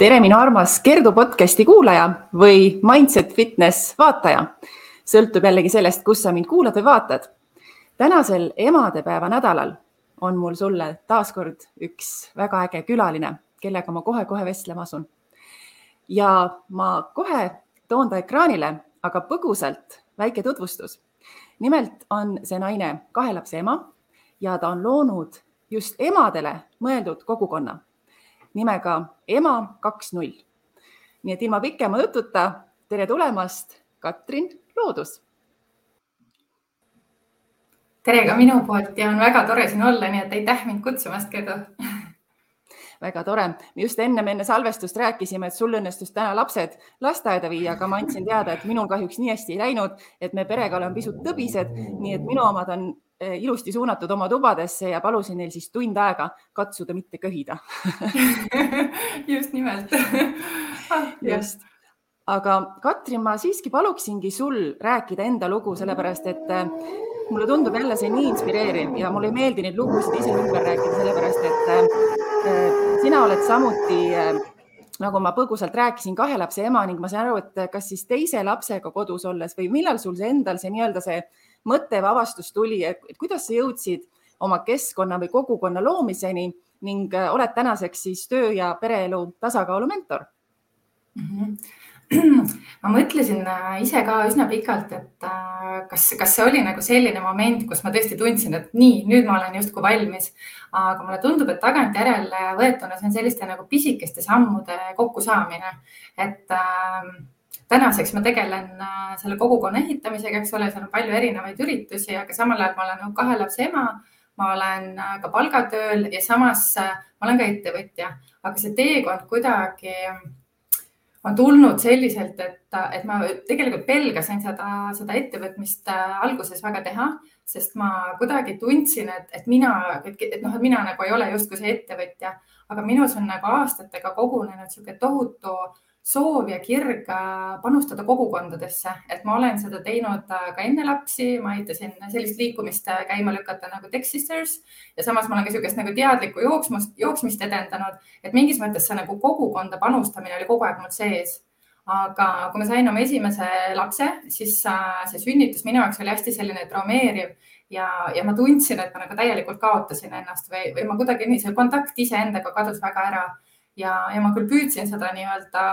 Tere, minu armas Kerdu podcasti kuulaja või Mindset Fitness vaataja. Sõltub jällegi sellest, kus sa mind kuulad või vaatad. Tänasel emadepäeva nädalal on mul sulle taaskord üks väga äge külaline, kellega ma kohe vestlema asun. Ja ma kohe toon ta ekraanile, aga põgusalt väike tutvustus. Nimelt on see naine 2 lapse ema ja ta on loonud just emadele mõeldud kogukonna nimega Ema 2.0. Nii et ilma pikema jututa, tere tulemast, Katrin Loodus. Tere ka minu poolt ja on väga tore siin olla, nii et aitäh mind kutsumast, Kerdu. Väga tore. Just enne salvestust rääkisime, et sul õnnestus täna lapsed lasteaeda viia, aga ma andsin teada, et minul kahjuks nii hästi ei läinud, et me perega oleme pisut tõbised, nii et minu omad on ilusti suunatud oma tubadesse ja palusin neil siis tund aega katsuda mitte köhida. Just nimelt. Just. Aga Katrin, ma siiski paluksingi sul rääkida enda lugu, sellepärast et mulle tundub jälle see nii inspireeriv ja mulle ei meeldi neid lugusid ise ümber rääkida, sellepärast et sina oled samuti, nagu ma põgusalt rääkisin, 2 lapse ema ning ma saan aru, et kas siis teise lapsega kodus olles või millal sul see endal see nii-öelda see mõtte või avastus tuli, et kuidas sa jõudsid oma keskkonna või kogukonna loomiseni ning oled tänaseks siis töö ja pereelu tasakaalu mentor? Ma mõtlesin ise ka üsna pikalt, et kas see oli nagu selline moment, kus ma tõesti tundsin, et nii, nüüd ma olen justkui valmis. Aga mulle tundub, et tagantjärele võetuna see on selliste nagu pisikeste sammude kokkusaamine. Et tänaseks ma tegelen selle kogukonna ehitamisega, eks ole, seal on palju erinevaid üritusi, aga samal ajal ma olen 2 lapse ema, ma olen ka palgatööl ja samas ma olen ka ettevõtja. Aga see teekond kuidagi on tulnud selliselt, et ma tegelikult pelgasin seda ettevõtmist alguses väga teha, sest ma kuidagi tundsin, et mina nagu ei ole justkui see ettevõtja, aga minus on nagu aastatega kogunenud selline tohutu soov ja kirg panustada kogukondadesse, et ma olen seda teinud ka enne lapsi, ma aitasin sellist liikumist käima lükata nagu Tech Sisters ja samas ma olen ka sellisest nagu teadlikku jooksmist edendanud, et mingis mõttes see nagu kogukonda panustamine oli kogu aeg mul sees. Aga kui ma sain oma esimese lapse, siis see sünnitus minu jaoks oli hästi selline traumeeriv ja ma tundsin, et ma nagu täielikult kaotasin ennast või ma kuidagi nii, see kontakt iseendaga kadus väga ära ja ma küll püüdsin seda nii-öelda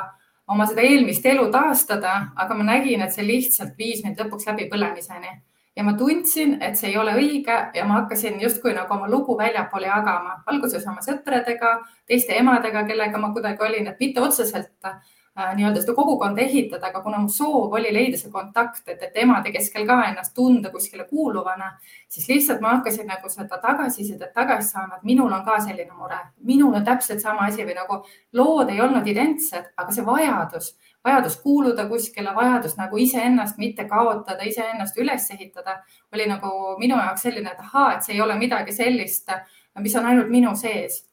oma seda eelmist elu taastada, aga ma nägin, et see lihtsalt viis mind lõpuks läbi põlemiseni. Ja ma tundsin, et see ei ole õige ja ma hakkasin justkui nagu oma lugu väljapoole jagama. Alguses oma sõpradega, teiste emadega, kellega ma kuidagi olin, et mitte otseselt nii-öelda seda kogukonda ehitada, aga kuna mu soov oli leida see kontakt, et emade keskel ka ennast tunda kuskile kuuluvana, siis lihtsalt ma hakkasin nagu seda tagasisidet tagasi saama, et minul on ka selline mure. Minul on täpselt sama asi või nagu lood ei olnud identsed, aga see vajadus kuuluda kuskile, vajadus nagu iseennast mitte kaotada, iseennast üles ehitada, oli nagu minu jaoks selline, et see ei ole midagi sellist, mis on ainult minu sees.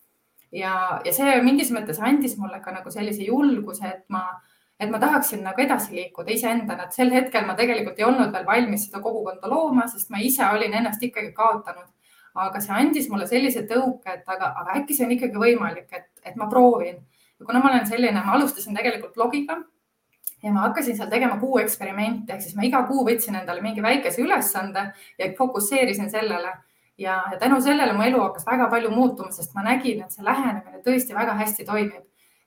Ja see mingis mõttes andis mulle ka nagu sellise julguse, et ma tahaksin nagu edasi liikuda iseendana, et sel hetkel ma tegelikult ei olnud veel valmis seda kogukonda looma, sest ma ise olin ennast ikkagi kaotanud. Aga see andis mulle sellise tõuke, et aga äkki see on ikkagi võimalik, et ma proovin. Ja kuna ma olen selline, ma alustasin tegelikult blogiga ja ma hakkasin seal tegema kuu eksperimente, ehk siis ma iga kuu võtsin endale mingi väikese ülesande ja fokusseerisin sellele. Ja tänu sellele mu elu hakkas väga palju muutuma, sest ma nägin, et see lähenemine tõesti väga hästi toimib.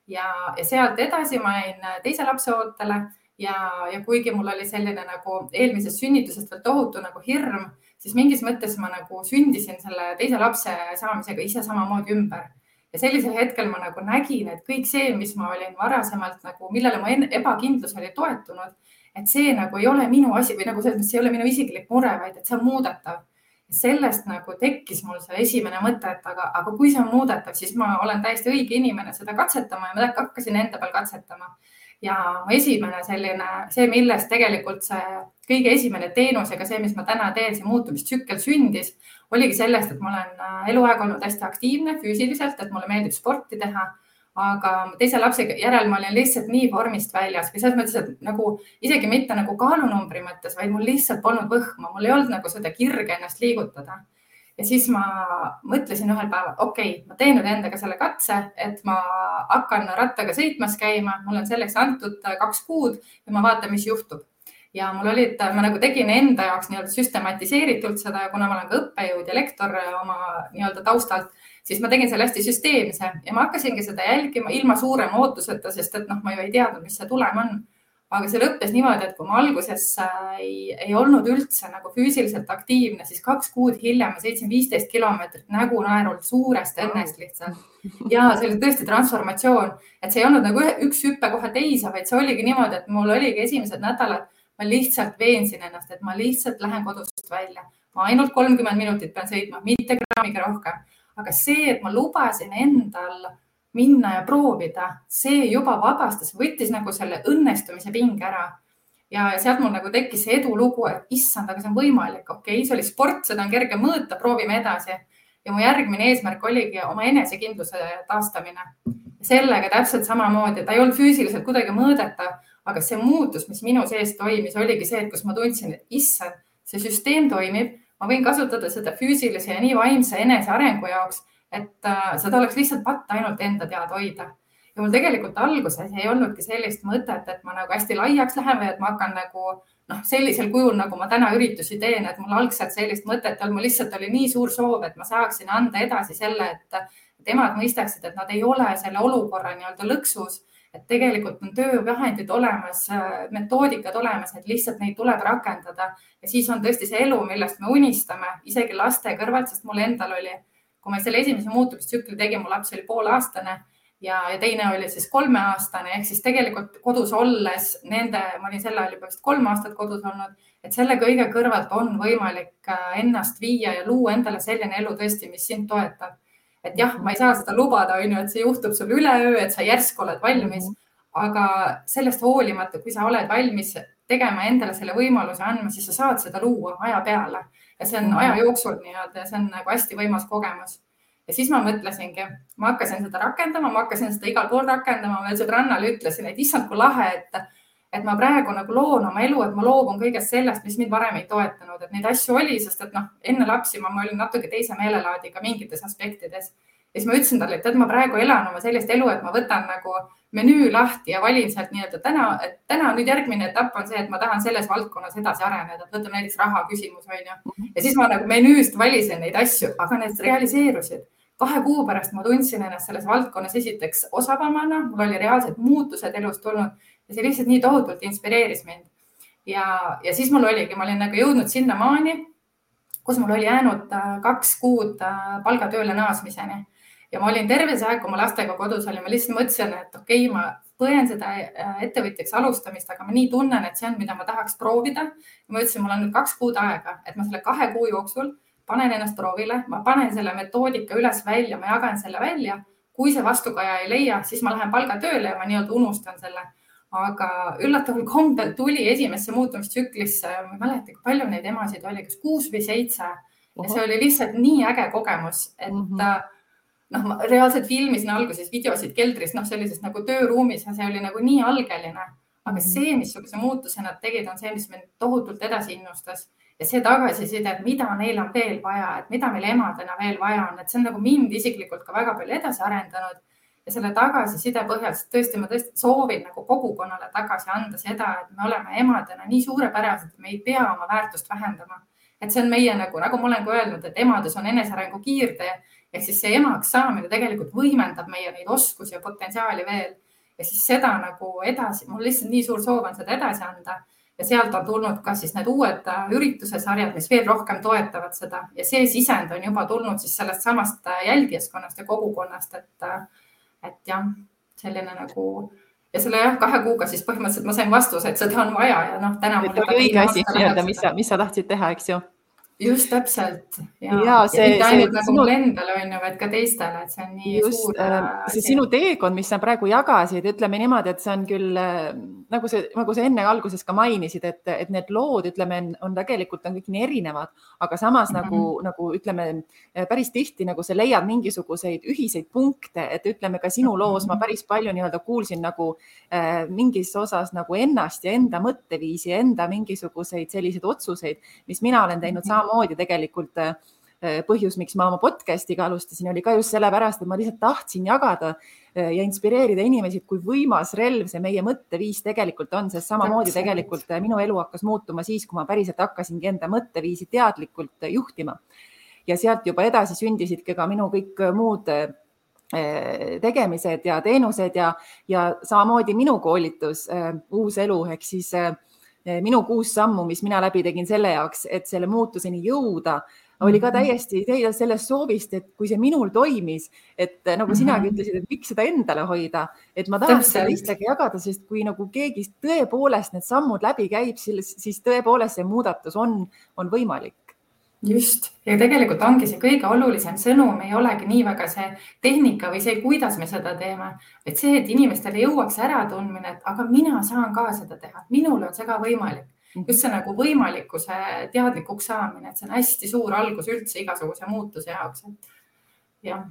Ja sealt edasi ma jäin teise lapse ootele ja kuigi mul oli selline nagu eelmisest sünnitusest veel tohutu nagu hirm, siis mingis mõttes ma nagu sündisin selle teise lapse saamisega ise samamoodi ümber. Ja sellisel hetkel ma nagu nägin, et kõik see, mis ma olin varasemalt nagu, millele mu ebakindlus oli toetunud, et see nagu ei ole minu asi või nagu see ei ole minu isiklik mure, vaid et see on muudetav. Sellest nagu tekkis mul see esimene mõte, et aga kui see on muudetav, siis ma olen täiesti õige inimene seda katsetama ja ma hakkasin enda peal katsetama. Ja esimene selline, see millest tegelikult see kõige esimene teenus ega see, mis ma täna teen, see muutumistsükkel sündis, oligi sellest, et ma olen eluaeg olnud hästi aktiivne füüsiliselt, et mulle meeldib sporti teha. Aga teise lapse järel ma olin lihtsalt nii vormist väljas või selles mõttes, et nagu isegi mitte nagu kaalunumbri mõttes, vaid mul lihtsalt polnud võhma, mul ei olnud nagu seda kirge ennast liigutada. Ja siis ma mõtlesin ühel päeval, okei, ma teen nüüd endaga selle katse, et ma hakkan rattaga sõitmas käima, mul on selleks antud 2 kuud ja ma vaatan, mis juhtub. Ja mul olid, ma nagu tegin enda jaoks nii-öelda süstematiseeritult seda, kuna ma olen ka õppejõud ja lektor oma nii-öelda taustalt, siis ma tegin selle hästi süsteemse ja ma hakkasingi seda jälgima ilma suurema ootuseta, sest et ma ju ei teadnud, mis see tulem on. Aga see lõppes niimoodi, et kui ma alguses ei olnud üldse nagu füüsiliselt aktiivne, siis 2 kuud hiljem ma sõitsin 15 kilomeetrit nägu naerult suurest õnnest lihtsalt. Ja see oli tõesti transformatsioon, et see ei olnud nagu üks hüppe kohe teise, vaid see oligi niimoodi, et mul oligi esimesed nädalad, ma lihtsalt veensin ennast, et ma lihtsalt lähen kodust välja. Ma ainult 30 minutit pean sõitma, mitte grammiga rohkem. Aga see, et ma lubasin endal minna ja proovida, see juba vabastas, võttis nagu selle õnnestumise pinge ära. Ja sealt mul nagu tekkis see edulugu, et issand, aga see on võimalik. Okei, see oli sport, seda on kerge mõõta, proovime edasi. Ja mu järgmine eesmärk oligi oma enesekindluse taastamine. Sellega täpselt samamoodi, ta ei olnud füüsiliselt kuidagi mõõdetav, aga see muutus, mis minu sees toimis, oligi see, et kus ma tundsin, et issand, see süsteem toimib, ma võin kasutada seda füüsilise ja nii vaimse enesearengu jaoks, et seda oleks lihtsalt patt ainult enda teada hoida. Ja mul tegelikult alguses ei olnudki sellist mõtet, et ma nagu hästi laiaks lähen või et ma hakkan nagu sellisel kujul, nagu ma täna üritusi teen, et mul algselt sellist mõtet on, mul lihtsalt oli nii suur soov, et ma saaksin anda edasi selle, et emad mõistaksid, et nad ei ole selle olukorra nii-öelda lõksus, et tegelikult on töövahendid olemas, metoodikad olemas, et lihtsalt neid tuleb rakendada. Ja siis on tõesti see elu, millest me unistame, isegi laste kõrvalt, sest mul endal oli, kui ma selle esimese muutumistsükli tegin, mu laps oli poolaastane ja teine oli siis 3-aastane, ehk siis tegelikult kodus olles ma olin selle ajal juba vist 3 aastat kodus olnud, et selle kõige kõrvalt on võimalik ennast viia ja luua endale selline elu tõesti, mis sind toetab. Et jah, ma ei saa seda lubada, et see juhtub sul üleöö, et sa järsku oled valmis, aga sellest hoolimata, kui sa oled valmis tegema endale selle võimaluse andma, siis sa saad seda luua aja peale. Ja see on aja jooksul nii-öelda ja see on nagu hästi võimas kogemus. Ja siis ma mõtlesingi, ma hakkasin seda rakendama, ma hakkasin seda igal pool rakendama, veel sõbrannale ütlesin, et issand, kui lahe, et ma praegu nagu loon oma elu, et ma loobun kõigest sellest, mis mind varem ei toetanud, et neid asju oli, sest et enne lapsi ma olin natuke teise meelelaadiga mingites aspektides. Ja siis ma ütlesin talle, et ma praegu elan oma sellist elu, et ma võtan nagu menüü lahti ja valin sealt nii-öelda täna nüüd järgmine etapp on see, et ma tahan selles valdkonnas edasi areneda, et võtame näiteks raha küsimus, on ju. Ja siis ma nagu menüüst valisin neid asju, aga need realiseerusid. 2 kuu pärast ma tundsin ennast selles valdkonnas esiteks osavamana, mul oli reaalsed muutused elus tulnud ja see lihtsalt nii tohutult inspireeris mind. Ja siis mul oligi, ma olin nagu jõudnud sinna maani, kus mul oli jäänud 2 kuud palgatööle naasmiseni. Ja ma olin terve see aeg, kui ma lastega kodus olin, ma lihtsalt mõtlesin, et okei, ma põen seda ettevõtjaks alustamist, aga ma nii tunnen, et see on, mida ma tahaks proovida. Ma ütlesin, mul on nüüd 2 kuud aega, et ma selle 2 kuu jooksul panen ennast proovile, ma panen selle metoodika üles välja, ma jagan selle välja. Kui see vastukaja ei leia, siis ma lähen palgatööle ja ma nii-öelda unustan selle. Aga üllataval kombel tuli esimesse muutumistsüklisse, ma ei mäleta, kui palju neid emasid oli, kas 6 või 7. Ja see oli lihtsalt nii äge kogemus, et ma reaalselt filmisin alguses videosid keldris, sellisest nagu tööruumis ja see oli nagu nii algeline. Aga see, missuguse muutuse nad tegid, on see, mis mind tohutult edasi innustas. Ja see tagasiside, et mida neil on veel vaja, et mida meil emadena veel vaja on, et see on nagu mind isiklikult ka väga palju edasi arendanud. Ja selle tagasiside põhjal, tõesti, ma tõesti soovin nagu kogukonnale tagasi anda seda, et me oleme emadena nii suurepärased, et me ei pea oma väärtust vähendama. Et see on meie nagu ma olen ka öelnud, et emades on enesearengu kiirtee, ehk siis see emaks saamine tegelikult võimendab meie neid oskusi ja potentsiaali veel. Ja siis seda nagu edasi, mul lihtsalt nii suur soov on seda edasi anda. Ja sealt on tulnud ka siis need uued ürituse sarjad, mis veel rohkem toetavad seda. Ja see sisend on juba tulnud siis sellest samast jälgijaskonnast ja kogukonnast, et jah, selline nagu ja selle 2 kuuga siis põhimõtteliselt ma sain vastuse, et seda on vaja ja täna mul õige asi, mis sa tahtsid teha, eks ju? Just täpselt. Ja mitte ainult nagu mul endale on ju, vaid ka teistele, et see on nii suur. See sinu teekond, mis sa praegu jagasid, ütleme niimoodi, et see on küll, nagu sa enne alguses ka mainisid, et need lood, ütleme, on tegelikult kõik nii erinevad, aga samas nagu ütleme, päris tihti nagu sa leiad mingisuguseid ühiseid punkte, et ütleme ka sinu loos ma päris palju nii-öelda kuulsin nagu mingis osas nagu ennast ja enda mõtteviisi ja enda mingisuguseid selliseid otsuseid, mis mina olen teinud samamoodi tegelikult põhjus, miks ma oma podcast'iga alustasin, oli ka just sellepärast, et ma lihtsalt tahtsin jagada ja inspireerida inimesi, kui võimas relv see meie mõtteviis tegelikult on, sest samamoodi tegelikult minu elu hakkas muutuma siis, kui ma päriselt hakkasingi enda mõtteviisi teadlikult juhtima. Ja sealt juba edasi sündisidki ka minu kõik muud tegemised ja teenused ja samamoodi minu koolitus Uus elu ehk siis minu 6 sammu, mis mina läbi tegin selle jaoks, et selle muutuseni jõuda, oli ka täiesti sellest soovist, et kui see minul toimis, et nagu sinagi ütlesid, et miks seda endale hoida, et ma tahan seda teistega jagada, sest kui nagu keegi tõepoolest need sammud läbi käib, siis tõepoolest see muudatus on võimalik. Just. Ja tegelikult ongi see kõige olulisem sõnum, ei olegi nii väga see tehnika või see, kuidas me seda teeme, et see, et inimestele jõuaks ära tundmine, et aga mina saan ka seda teha, minul on see ka võimalik. Just see nagu võimalikkuse teadlikuks saamine, et see on hästi suur algus üldse igasuguse muutuse jaoks. Ja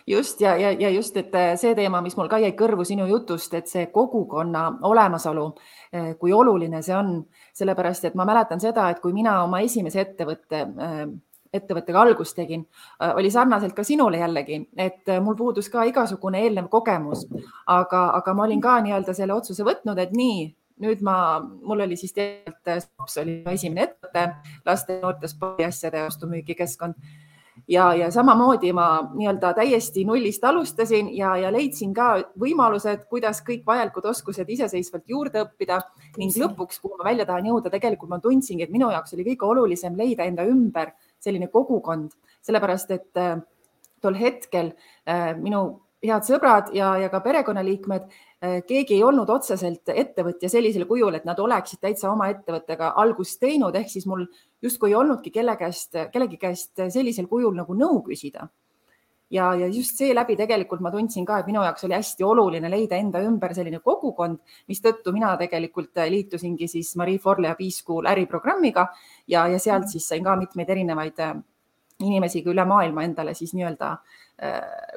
just ja just, et see teema, mis mul ka jäi kõrvu sinu jutust, et see kogukonna olemasolu, kui oluline see on, sellepärast, et ma mäletan seda, et kui mina oma esimese ettevõttega algust tegin, oli sarnaselt ka sinule jällegi, et mul puudus ka igasugune eelnev kogemus, aga ma olin ka nii-öelda selle otsuse võtnud, et nii, nüüd mul oli siis tegelikult Stops oli esimene ettevõte, laste ja noorte spordiasjade ostu-müügikeskkond. Ja samamoodi ma nii-öelda täiesti nullist alustasin ja leidsin ka võimalused, kuidas kõik vajalikud oskused iseseisvalt juurde õppida ning lõpuks, kuhu ma välja tahan jõuda, tegelikult ma tundsingi, et minu jaoks oli kõige olulisem leida enda ümber selline kogukond, sellepärast et tol hetkel minu head sõbrad ja ka perekonnaliikmed, keegi ei olnud otseselt ettevõtja sellisel kujul, et nad oleksid täitsa oma ettevõttega algust teinud, ehk siis mul justkui ei olnudki kellegi käest sellisel kujul nagu nõu küsida. Ja just seeläbi tegelikult ma tundsin ka, et minu jaoks oli hästi oluline leida enda ümber selline kogukond, mis tõttu mina tegelikult liitusingi siis Marie Forleo B-School äriprogrammiga ja sealt siis sain ka mitmeid erinevaid inimesi üle maailma endale siis nii-öelda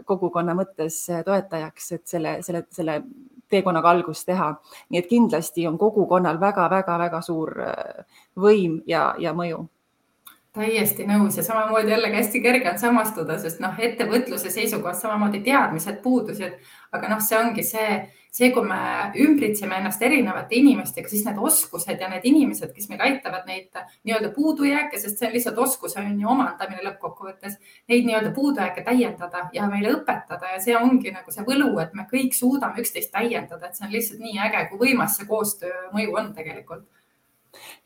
kogukonna mõttes toetajaks, et selle teekonnaga algust teha. Nii et kindlasti on kogukonnal väga suur võim ja mõju. Täiesti nõus ja samamoodi jällegi hästi kerge on samastuda, sest ettevõtluse seisukohast samamoodi teadmised puudusid, aga see ongi see, kui me ümbritseme ennast erinevate inimestega, siis need oskused ja need inimesed, kes meil aitavad neid nii-öelda puudujääke, sest see on lihtsalt oskuse omandamine lõppkokkuvõttes, neid nii-öelda puudujääke täiendada ja meile õpetada ja see ongi nagu see võlu, et me kõik suudame üksteist täiendada, et see on lihtsalt nii äge, kui võimas see koostöö mõju on tegelikult.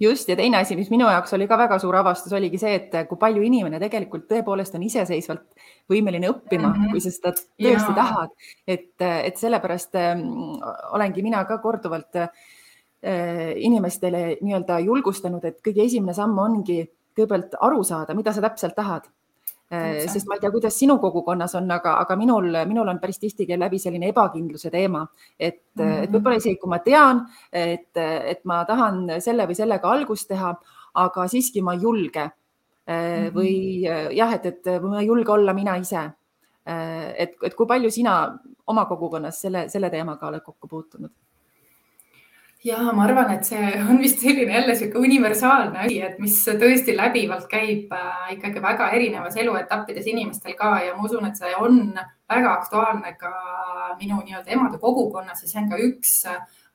Just ja teine asi, mis minu jaoks oli ka väga suur avastus, oligi see, et kui palju inimene tegelikult tõepoolest on iseseisvalt võimeline õppima, kui sa seda tõesti tahad. Et sellepärast olengi mina ka korduvalt inimestele nii-öelda julgustanud, et kõige esimene samm ongi kõigepealt aru saada, mida sa täpselt tahad. Sest ma ei tea, kuidas sinu kogukonnas on, aga minul on päris tihti läbi selline ebakindluse teema, et võib-olla isegi, kui ma tean, et ma tahan selle või sellega algust teha, aga siiski ma ei julge või jah, et ma ei julge olla mina ise. Et kui palju sina oma kogukonnas selle teemaga oled kokku puutunud? Ja ma arvan, et see on vist selline jälle siuke universaalne asi, et mis tõesti läbivalt käib ikkagi väga erinevas eluetappides inimestel ka ja ma usun, et see on väga aktuaalne ka minu nii-öelda emade kogukonnas ja see on ka üks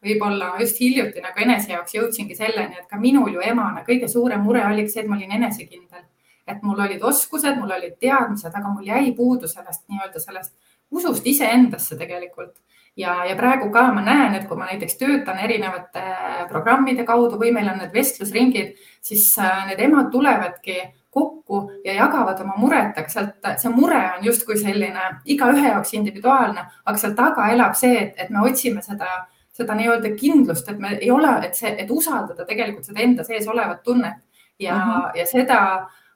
võib-olla just hiljuti nagu enese jaoks jõudsingi selleni, et ka minul ju emana kõige suurem mure oli see, et ma olin enesekindel, et mul olid oskused, mul olid teadmised, aga mul jäi puudu sellest nii-öelda sellest usust iseendasse tegelikult. Ja praegu ka ma näen, et kui ma näiteks töötan erinevate programmide kaudu või meil on need vestlusringid, siis need emad tulevadki kokku ja jagavad oma muret, aga see mure on justkui selline igaühe jaoks individuaalne, aga seal taga elab see, et me otsime seda nii-öelda kindlust, et me ei ole, et usaldada tegelikult seda enda sees olevat tunnet ja seda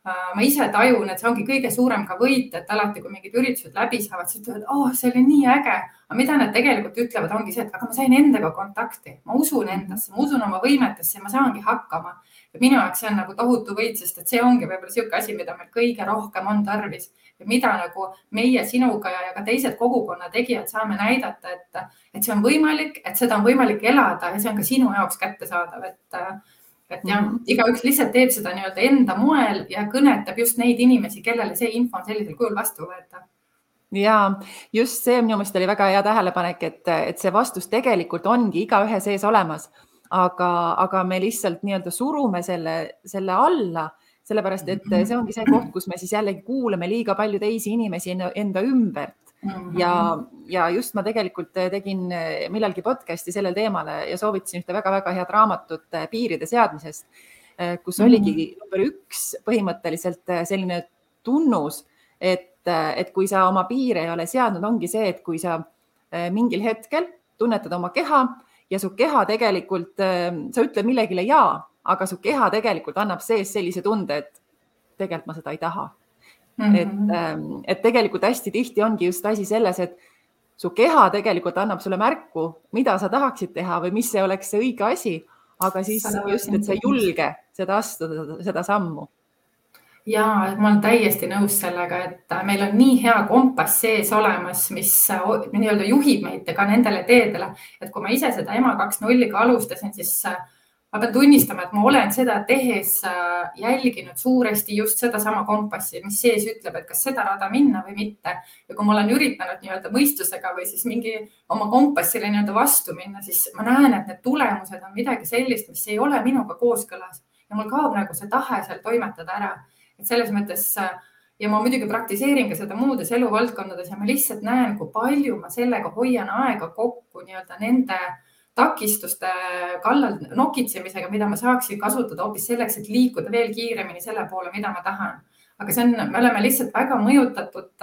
ma ise tajun, et see ongi kõige suurem ka võit, et alati, kui mingid üritused läbi saavad, siis ütlevad, see oli nii äge. Aga mida nad tegelikult ütlevad, ongi see, et aga ma sain endaga kontakti, ma usun endasse, ma usun oma võimetesse ja ma saangi hakkama. Ja minu jaoks see on nagu tohutu võit, sest et see ongi võib-olla siuke asi, mida meil kõige rohkem on tarvis ja mida nagu meie sinuga ja ka teised kogukonna tegijad saame näidata, et see on võimalik, et seda on võimalik elada ja see on ka sinu jaoks kättesaadav, et jah, igaüks lihtsalt teeb seda nii-öelda enda moel ja kõnetab just neid inimesi, kellele see info on sellisel kujul vastuvõetav. Ja just see minu meelest oli väga hea tähelepanek, et see vastus tegelikult ongi igaühe sees olemas, aga me lihtsalt nii-öelda surume selle alla, sellepärast et see ongi see koht, kus me siis jällegi kuuleme liiga palju teisi inimesi enda ümbert. Ja just ma tegelikult tegin millalgi podcasti sellel teemale ja soovitasin ühte väga-väga head raamatut piiride seadmisest, kus oligi number 1 põhimõtteliselt selline tunnus, et kui sa oma piire ei ole seadnud, ongi see, et kui sa mingil hetkel tunnetad oma keha ja su keha tegelikult, sa ütled millegile jaa, aga su keha tegelikult annab sees sellise tunde, et tegelikult ma seda ei taha. Et tegelikult hästi tihti ongi just asi selles, et su keha tegelikult annab sulle märku, mida sa tahaksid teha või mis see oleks see õige asi, aga siis just, et sa ei julge seda astuda, seda sammu. Ja ma olen täiesti nõus sellega, et meil on nii hea kompass sees olemas, mis nii-öelda juhib meid ka nendele teedele, et kui ma ise seda EMA 2.0-ga alustasin, siis ma pean tunnistama, et ma olen seda tehes jälginud suuresti just seda sama kompassi, mis sees ütleb, et kas seda rada minna või mitte. Ja kui ma olen üritanud nii-öelda mõistusega või siis mingi oma kompassile nii-öelda vastu minna, siis ma näen, et need tulemused on midagi sellist, mis ei ole minuga kooskõlas ja mul kaob nagu see tahe seal toimetada ära. Et selles mõttes, ja ma muidugi praktiseerin ka seda muudes eluvaldkondades ja ma lihtsalt näen, kui palju ma sellega hoian aega kokku nii-öelda nende takistuste kallal nokitsemisega, mida ma saaksin kasutada hoopis selleks, et liikuda veel kiiremini selle poole, mida ma tahan. Aga me oleme lihtsalt väga mõjutatud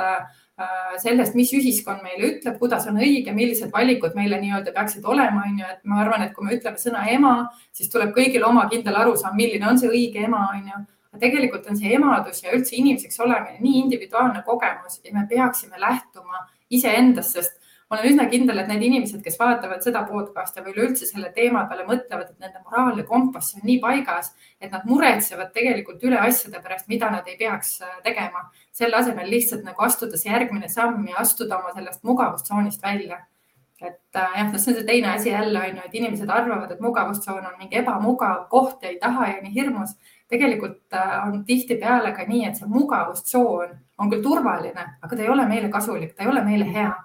sellest, mis ühiskond meile ütleb, kuidas on õige, millised valikud meile nii-öelda peaksid olema. Et ma arvan, et kui me ütleme sõna ema, siis tuleb kõigil oma kindel arusaam, milline on see õige ema. Tegelikult on see emadus ja üldse inimeseks olemine nii individuaalne kogemus ja me peaksime lähtuma iseendast, sest ma olen üsna kindel, et need inimesed, kes vaatavad seda podcasti või üleüldse selle teema peale mõtlevad, et nende moraalne kompass on nii paigas, et nad muretsevad tegelikult üle asjade pärast, mida nad ei peaks tegema. Selle asemel lihtsalt nagu astuda see järgmine samm ja astuda oma sellest mugavustsoonist välja. Et jah, see on see teine asi jälle, et inimesed arvavad, et mugavustsoon on mingi ebamugav koht ja ei taha ja nii hirmus. Tegelikult on tihti peale ka nii, et see mugavustsoon on küll turvaline, aga ta ei ole meile kasulik, ta ei ole meile hea.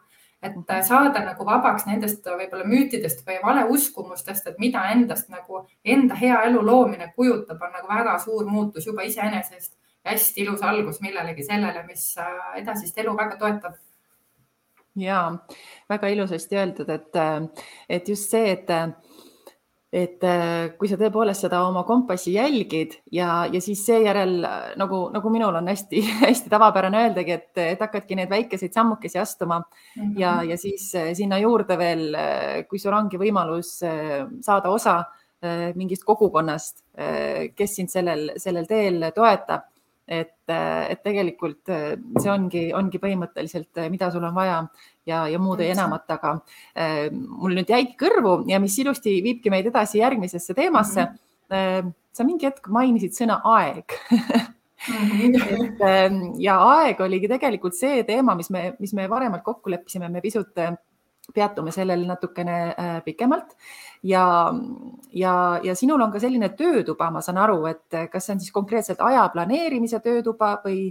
Et saada nagu vabaks nendest võib-olla müütidest või valeuskumustest, et mida endast nagu enda hea elu loomine kujutab, on nagu väga suur muutus juba iseenesest ja hästi ilus algus millelegi sellele, mis edasist elu väga toetab. Ja väga ilusasti öeldud, et just see, et kui sa tõepoolest seda oma kompassi jälgid ja siis seejärel, nagu minul on hästi, hästi tavapärane öeldagi, et hakkadki need väikeseid sammukesi astuma ja siis sinna juurde veel, kui sul ongi võimalus saada osa mingist kogukonnast, kes sind sellel teel toetab, et tegelikult see ongi põhimõtteliselt, mida sul on vaja ja muud ei enamat, aga mul nüüd jäigi kõrvu ja mis ilusti viibki meid edasi järgmisesse teemasse. Sa mingi hetk mainisid sõna aeg. Ja aeg oligi tegelikult see teema, mis me varemalt kokku leppisime, me pisut peatume sellel natukene pikemalt ja sinul on ka selline töötuba, ma saan aru, et kas see on siis konkreetselt aja planeerimise töötuba või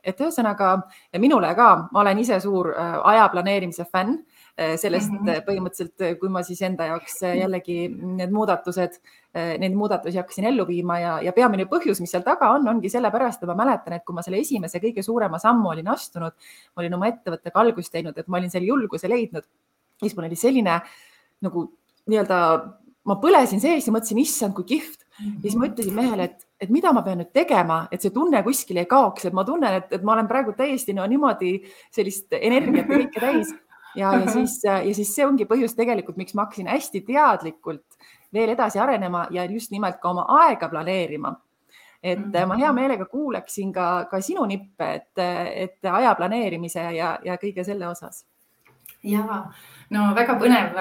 et ühesõnaga minule ka, ma olen ise suur aja planeerimise fänn sellest põhimõtteliselt, kui ma siis enda jaoks jällegi neid muudatusi hakkasin ellu viima ja peamine põhjus, mis seal taga ongi sellepärast, et ma mäletan, et kui ma selle esimese kõige suurema sammu olin astunud, ma olin oma ettevõttega algust teinud, et ma olin selle julguse leidnud, siis mul oli selline nagu nii-öelda, ma põlesin sees ja mõtlesin, issand, kui kihvt. Ja siis ma ütlesin mehele, et mida ma pean nüüd tegema, et see tunne kuskil ei kaoks, et ma tunnen, et ma olen praegu täiesti niimoodi sellist energiat ja kõike täis. Ja siis see ongi põhjus tegelikult, miks ma hakkasin hästi teadlikult veel edasi arenema ja just nimelt ka oma aega planeerima. Et ma hea meelega kuuleksin ka sinu nippe, et aja planeerimise ja kõige selle osas. Ja, no väga põnev.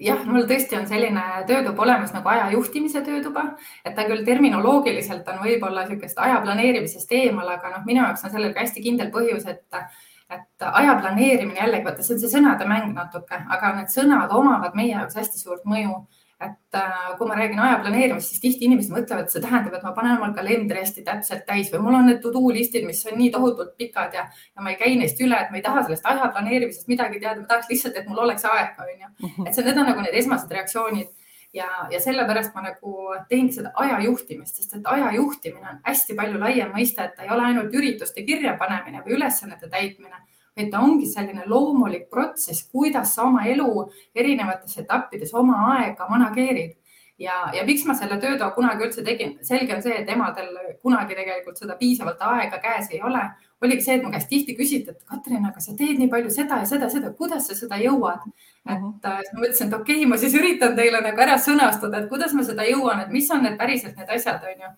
Jah, mul tõesti on selline töötuba olemas nagu aja juhtimise töötuba, et ta küll terminoloogiliselt on võib-olla niisugust aja planeerimisest eemal, aga minu jaoks on sellel ka hästi kindel põhjus, et aja planeerimine jällegi, vaata, see on see sõnade mäng natuke, aga need sõnad omavad meie jaoks hästi suurt mõju. et kui ma räägin aja planeerimist, siis tihti inimesed mõtlevad, et see tähendab, et ma panen omal kalendri hästi täpselt täis või mul on need to-do listid, mis on nii tohutult pikad ja ma ei käi neist üle, et ma ei taha sellest aja planeerimisest midagi teada, ma tahaks lihtsalt, et mul oleks aega, on ju. Et need on nagu need esmased reaktsioonid ja sellepärast ma nagu teengi seda aja juhtimist, sest et aja juhtimine on hästi palju laiem mõiste, et ta ei ole ainult ürituste kirjapanemine või ülesannete täitmine, et ta ongi selline loomulik protsess, kuidas sa oma elu erinevates etappides oma aega manageerid. Ja miks ma selle töötoa kunagi üldse tegin? Selge on see, et emadel kunagi tegelikult seda piisavalt aega käes ei ole. Oligi see, et mu käest tihti küsiti, et Katrin, aga sa teed nii palju seda ja seda, kuidas sa seda jõuad? Et ma mõtlesin, et okei, ma siis üritan teile nagu ära sõnastada, et kuidas ma seda jõuan, et mis on need päriselt need asjad, on ju.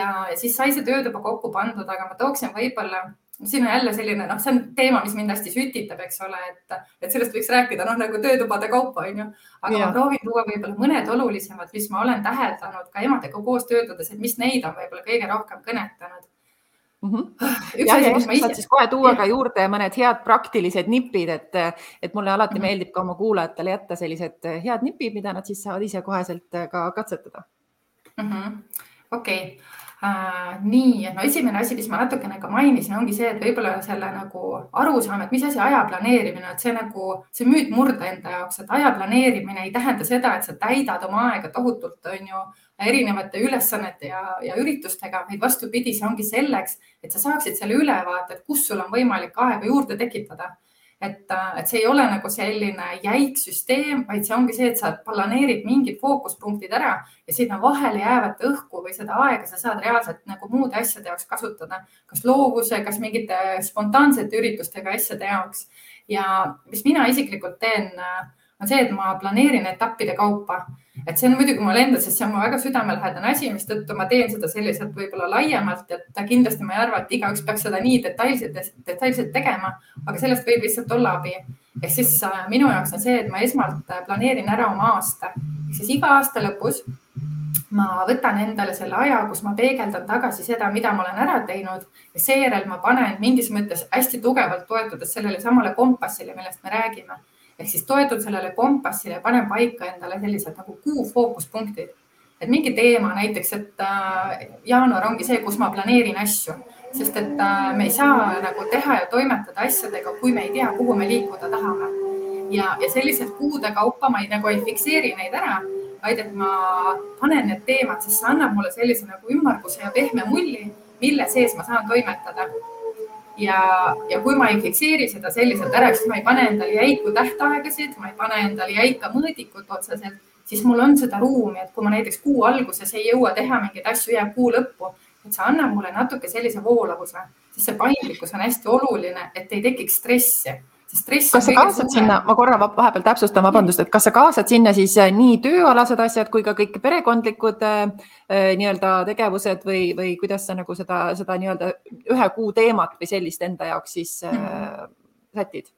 Ja siis sai see töötuba kokku pandud, aga ma tooksin võib-olla siin on jälle selline, see on teema, mis mind hästi sütitab, eks ole, et sellest võiks rääkida nagu töötubade kaupa, on ju. Aga ma proovin tuua võib-olla mõned olulisemad, mis ma olen täheldanud ka emadega koos töötades, et mis neid on võib-olla kõige rohkem kõnetanud. Saad siis kohe tuua ka juurde mõned head praktilised nipid, et mulle alati meeldib ka oma kuulajatele jätta sellised head nipid, mida nad siis saavad ise koheselt ka katsetada. Okei. Nii, no esimene asi, mis ma natukene ka mainisin, ongi see, et võib-olla selle nagu arusaam, et mis asi aja planeerimine, et see müüt murda enda jaoks, et aja planeerimine ei tähenda seda, et sa täidad oma aega tohutult, on ju, erinevate ülesannete ja üritustega, vaid vastupidi, see ongi selleks, et sa saaksid selle ülevaate, et kus sul on võimalik aega juurde tekitada. Et see ei ole nagu selline jäik süsteem, vaid see ongi see, et sa planeerid mingid fookuspunktid ära ja sinna vahele jäävat õhku või seda aega sa saad reaalselt nagu muude asjade jaoks kasutada. Kas loovuse, kas mingite spontaansete üritustega asjade jaoks. Ja mis mina isiklikult teen, on see, et ma planeerin etappide kaupa. Et see on muidugi mul enda, sest see on mu väga südamelähedane asi, mis tõttu ma teen seda selliselt võib-olla laiemalt, et kindlasti ma ei arva, et igaüks peaks seda nii detailselt tegema, aga sellest võib lihtsalt olla abi. Ehk siis minu jaoks on see, et ma esmalt planeerin ära oma aasta. Siis iga aasta lõpus ma võtan endale selle aja, kus ma peegeldan tagasi seda, mida ma olen ära teinud ja seejärel ma panen mingis mõttes hästi tugevalt toetudes sellele samale kompassile, millest me räägime. Ehk siis toetun sellele kompassile ja panen paika endale sellised nagu kuu fookuspunktid. Et mingi teema näiteks, et jaanuar ongi see, kus ma planeerin asju, sest et me ei saa nagu teha ja toimetada asjadega, kui me ei tea, kuhu me liikuda tahame. Ja sellised kuude kaupa ma ei fikseeri neid ära, vaid et ma panen need teemad, sest see annab mulle sellise nagu ümmarguse ja pehme mulli, mille sees ma saan toimetada. Ja kui ma ei fikseeri seda selliselt ära, siis ma ei pane endale jäiku tähtaegasid, ma ei pane endale jäika mõõdikut otseselt, siis mul on seda ruumi, et kui ma näiteks kuu alguses ei jõua teha mingeid asju, jääb kuu lõppu, et see annab mulle natuke sellise voolavuse, sest see paindlikkus on hästi oluline, et ei tekiks stressi. Kas sa kaasad sinna, ma korra vahepeal täpsustan, vabandust, et kas sa kaasad sinna siis nii tööalased asjad kui ka kõik perekondlikud nii-öelda tegevused või kuidas sa nagu seda nii-öelda ühe kuu teemat või sellist enda jaoks siis sätid?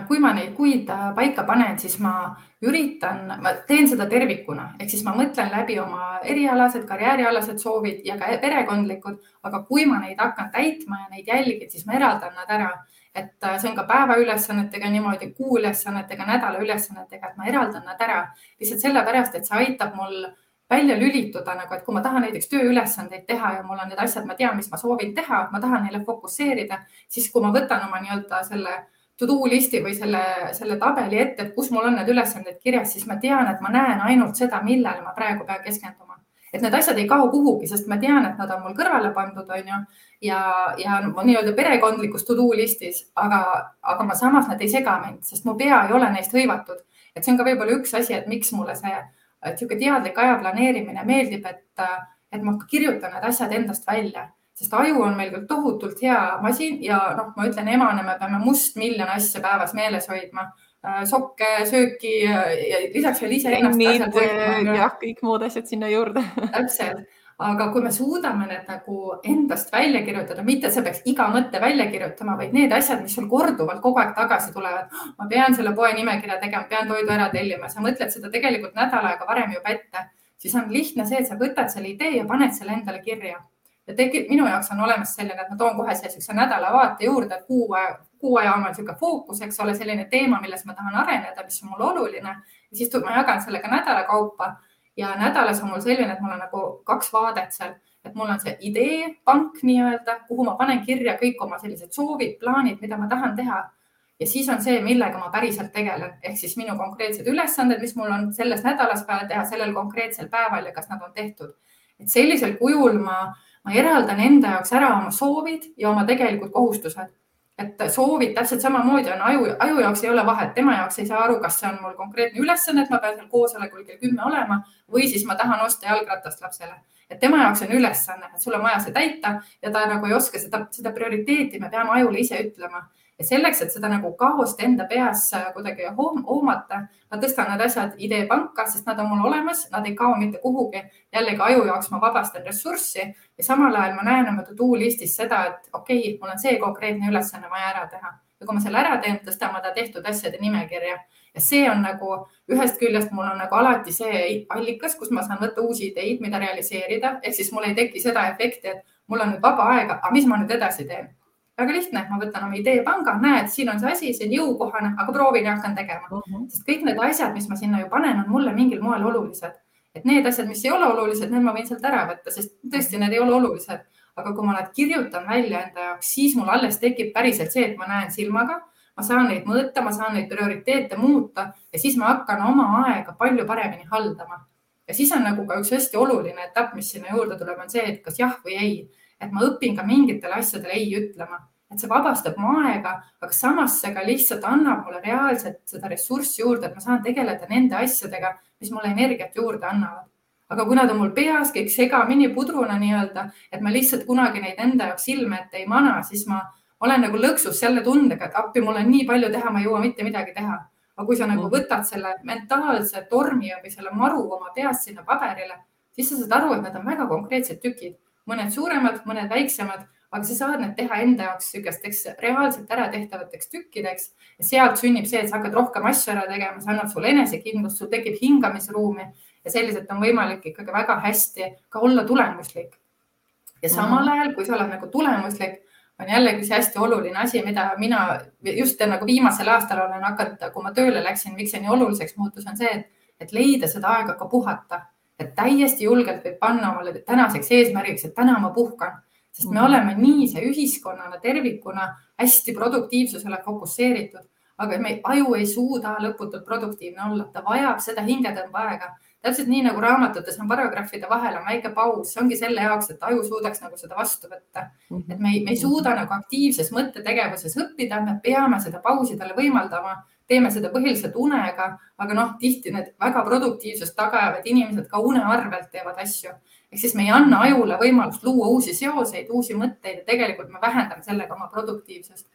Kui ma neid kuid paika panen, siis ma teen seda tervikuna, ehk siis ma mõtlen läbi oma erialased, karjäärialased soovid ja ka perekondlikud, aga kui ma neid hakkan täitma ja neid jälgid, siis ma eraldan nad ära. Et see on ka päevaülesannetega niimoodi, kuuülesannetega, nädalaülesannetega, et ma eraldan nad ära. Lihtsalt sellepärast, et see aitab mul välja lülituda, nagu, et kui ma tahan näiteks tööülesandeid teha ja mul on need asjad, ma tean, mis ma soovin teha, ma tahan neile fokusseerida, siis kui ma võtan oma nii-öelda selle to-do listi või selle tabeli ette, et kus mul on need ülesanded kirjas, siis ma tean, et ma näen ainult seda, millele ma praegu pean keskenduma. Et need asjad ei kao kuhugi, sest ma tean, et nad on mul kõrvale pandud, on ju, ja nii-öelda perekondlikus to-do listis, aga ma samas nad ei sega mind, sest mu pea ei ole neist hõivatud. Et see on ka võib-olla üks asi, et miks mulle see teadlik aja planeerimine meeldib, et ma kirjutan need asjad endast välja, sest aju on meil küll tohutult hea masin ja ma ütlen emane, me peame miljon asja päevas meeles hoidma. Sokke, sööki ja lisaks veel ise ennast jah, kõik muud asjad sinna juurde. Täpselt, aga kui me suudame need nagu endast välja kirjutada, mitte see peaks iga mõtte välja kirjutama, vaid need asjad, mis sul korduvalt kogu aeg tagasi tulevad, ma pean selle poe nimekirja tegema, pean toidu ära tellima, sa mõtled seda tegelikult nädal aega varem juba ette, siis on lihtne see, et sa võtad selle idee ja paned selle endale kirja. Ja minu jaoks on olemas selline, et ma toon kohe sellise nädalavaate juurde, kuu aja on selline fookus, eks ole, selline teema, milles ma tahan areneda, mis on mul oluline ja siis ma jagan selle ka nädala kaupa ja nädalas on mul selline, et mul on nagu 2 vaadet seal, et mul on see ideepank nii-öelda, kuhu ma panen kirja kõik oma sellised soovid, plaanid, mida ma tahan teha. Ja siis on see, millega ma päriselt tegelen, ehk siis minu konkreetsed ülesanded, mis mul on selles nädalas vaja teha sellel konkreetsel päeval ja kas nad on tehtud. Et sellisel kujul ma eraldan enda jaoks ära oma soovid ja oma tegelikult kohustused. Et soovid täpselt samamoodi on aju jaoks ei ole vahet. Tema jaoks ei saa aru, kas see on mul konkreetne ülesanne, et ma pean seal koosolekul kell 10 olema või siis ma tahan osta jalgratast lapsele. Et tema jaoks on ülesanne, et sul on vaja see täita ja ta nagu ei oska seda prioriteeti, me peame ajule ise ütlema. Ja selleks, et seda nagu kaost enda peas kuidagi hoomata, ma tõstan need asjad ideepanka, sest nad on mul olemas, nad ei kao mitte kuhugi. Jällegi aju jaoks ma vabastan ressurssi ja samal ajal ma näen oma to-do listis seda, et okei, mul on see konkreetne ülesanne vaja ära teha. Ja kui ma selle ära teen, tõstan ma ta tehtud asjade nimekirja. Ja see on nagu ühest küljest mul on nagu alati see allikas, kus ma saan võtta uusi ideid, mida realiseerida. Ehk siis mul ei teki seda efekti, et mul on nüüd vaba aega, aga mis ma nüüd edasi teen? Väga lihtne, ma võtan oma ideepanga, näed, siin on see asi, see on jõukohane, aga proovin ja hakkan tegema. Sest kõik need asjad, mis ma sinna ju panen, on mulle mingil moel olulised. Et need asjad, mis ei ole olulised, need ma võin sealt ära võtta, sest tõesti need ei ole olulised. Aga kui ma nad kirjutan välja enda jaoks, siis mul alles tekib päriselt see, et ma näen silmaga, ma saan neid mõõta, ma saan neid prioriteete muuta ja siis ma hakkan oma aega palju paremini haldama. Ja siis on nagu ka üks hästi oluline etapp, mis sinna juurde tuleb, on see, et kas jah või ei. Et ma õpin ka mingitele asjadele ei ütlema, et see vabastab mu aega, aga samas see ka lihtsalt annab mulle reaalselt seda ressurssi juurde, et ma saan tegeleda nende asjadega, mis mulle energiat juurde annavad. Aga kui nad on mul peas kõik segamini pudruna nii-öelda, et ma lihtsalt kunagi neid enda jaoks silme ette ei mana, siis ma olen nagu lõksus selle tundega, et appi mul on nii palju teha, ma ei jõua mitte midagi teha. Aga kui sa nagu võtad selle mentaalse tormi või selle maru oma peast sinna paberile, siis sa saad aru, et need on väga konkreetsed tükid. Mõned suuremad, mõned väiksemad, aga sa saad need teha enda jaoks sükesteks reaalselt ära tehtavateks tükkideks ja sealt sünnib see, et sa hakkad rohkem asju ära tegema, see annab sulle enesekindlust, sul tekib hingamisruumi ja selliselt on võimalik ikkagi väga hästi ka olla tulemuslik. Ja samal ajal, kui sa oled nagu tulemuslik, on jällegi see hästi oluline asi, mida mina just nagu viimasel aastal olen hakanud, kui ma tööle läksin, miks see nii oluliseks muutus, on see, et leida seda aega ka puhata. Et täiesti julgelt võib panna omale tänaseks eesmärgiks, et täna ma puhkan, sest me oleme nii see ühiskonnana tervikuna hästi produktiivsusele fokusseeritud, aga me aju ei suuda lõputult produktiivne olla, ta vajab seda hingetõmba aega. Täpselt nii nagu raamatutes on paragrahvide vahel on väike paus, see ongi selle jaoks, et aju suudaks nagu seda vastu võtta. Et me ei suuda nagu aktiivses mõttetegevuses õppida, me peame seda pausi talle võimaldama, teeme seda põhiliselt unega, aga tihti need väga produktiivsust tagajavad inimesed ka une arvelt teevad asju. Ehk siis me ei anna ajule võimalust luua uusi seoseid, uusi mõtteid ja tegelikult me vähendame sellega oma produktiivsust.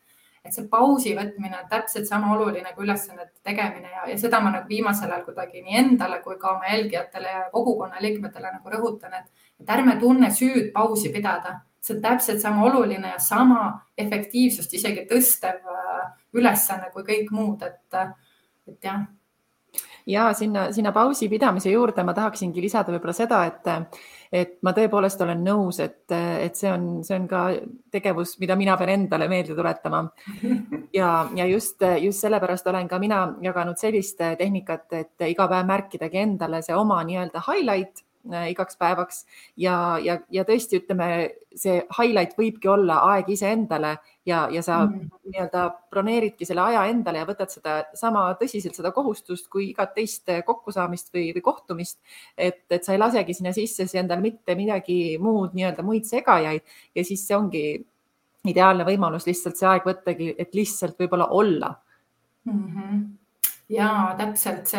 Et see pausi võtmine on täpselt sama oluline kui ülesannete tegemine ja seda ma nagu viimasel ajal kuidagi nii endale kui ka oma jälgijatele ja kogukonna liikmetele nagu rõhutan, et ärme tunne süüd pausi pidada. See on täpselt sama oluline ja sama efektiivsust isegi tõstev ülesanne kui kõik muud, et jah. Ja sinna pausi pidamise juurde ma tahaksingi lisada võib-olla seda, et ma tõepoolest olen nõus, et see on ka tegevus, mida mina pean endale meelde tuletama. Ja just sellepärast olen ka mina jaganud sellist tehnikat, et iga päev märkidagi endale see oma nii-öelda highlight igaks päevaks ja tõesti ütleme, see highlight võibki olla aeg iseendale ja sa nii-öelda broneeridki selle aja endale ja võtad seda sama tõsiselt seda kohustust kui igat teist kokkusaamist või kohtumist, et sa ei lasegi sinna sisse endale mitte midagi muud, nii-öelda muid segajaid ja siis see ongi ideaalne võimalus lihtsalt see aeg võttagi, et lihtsalt võib-olla olla. Ja täpselt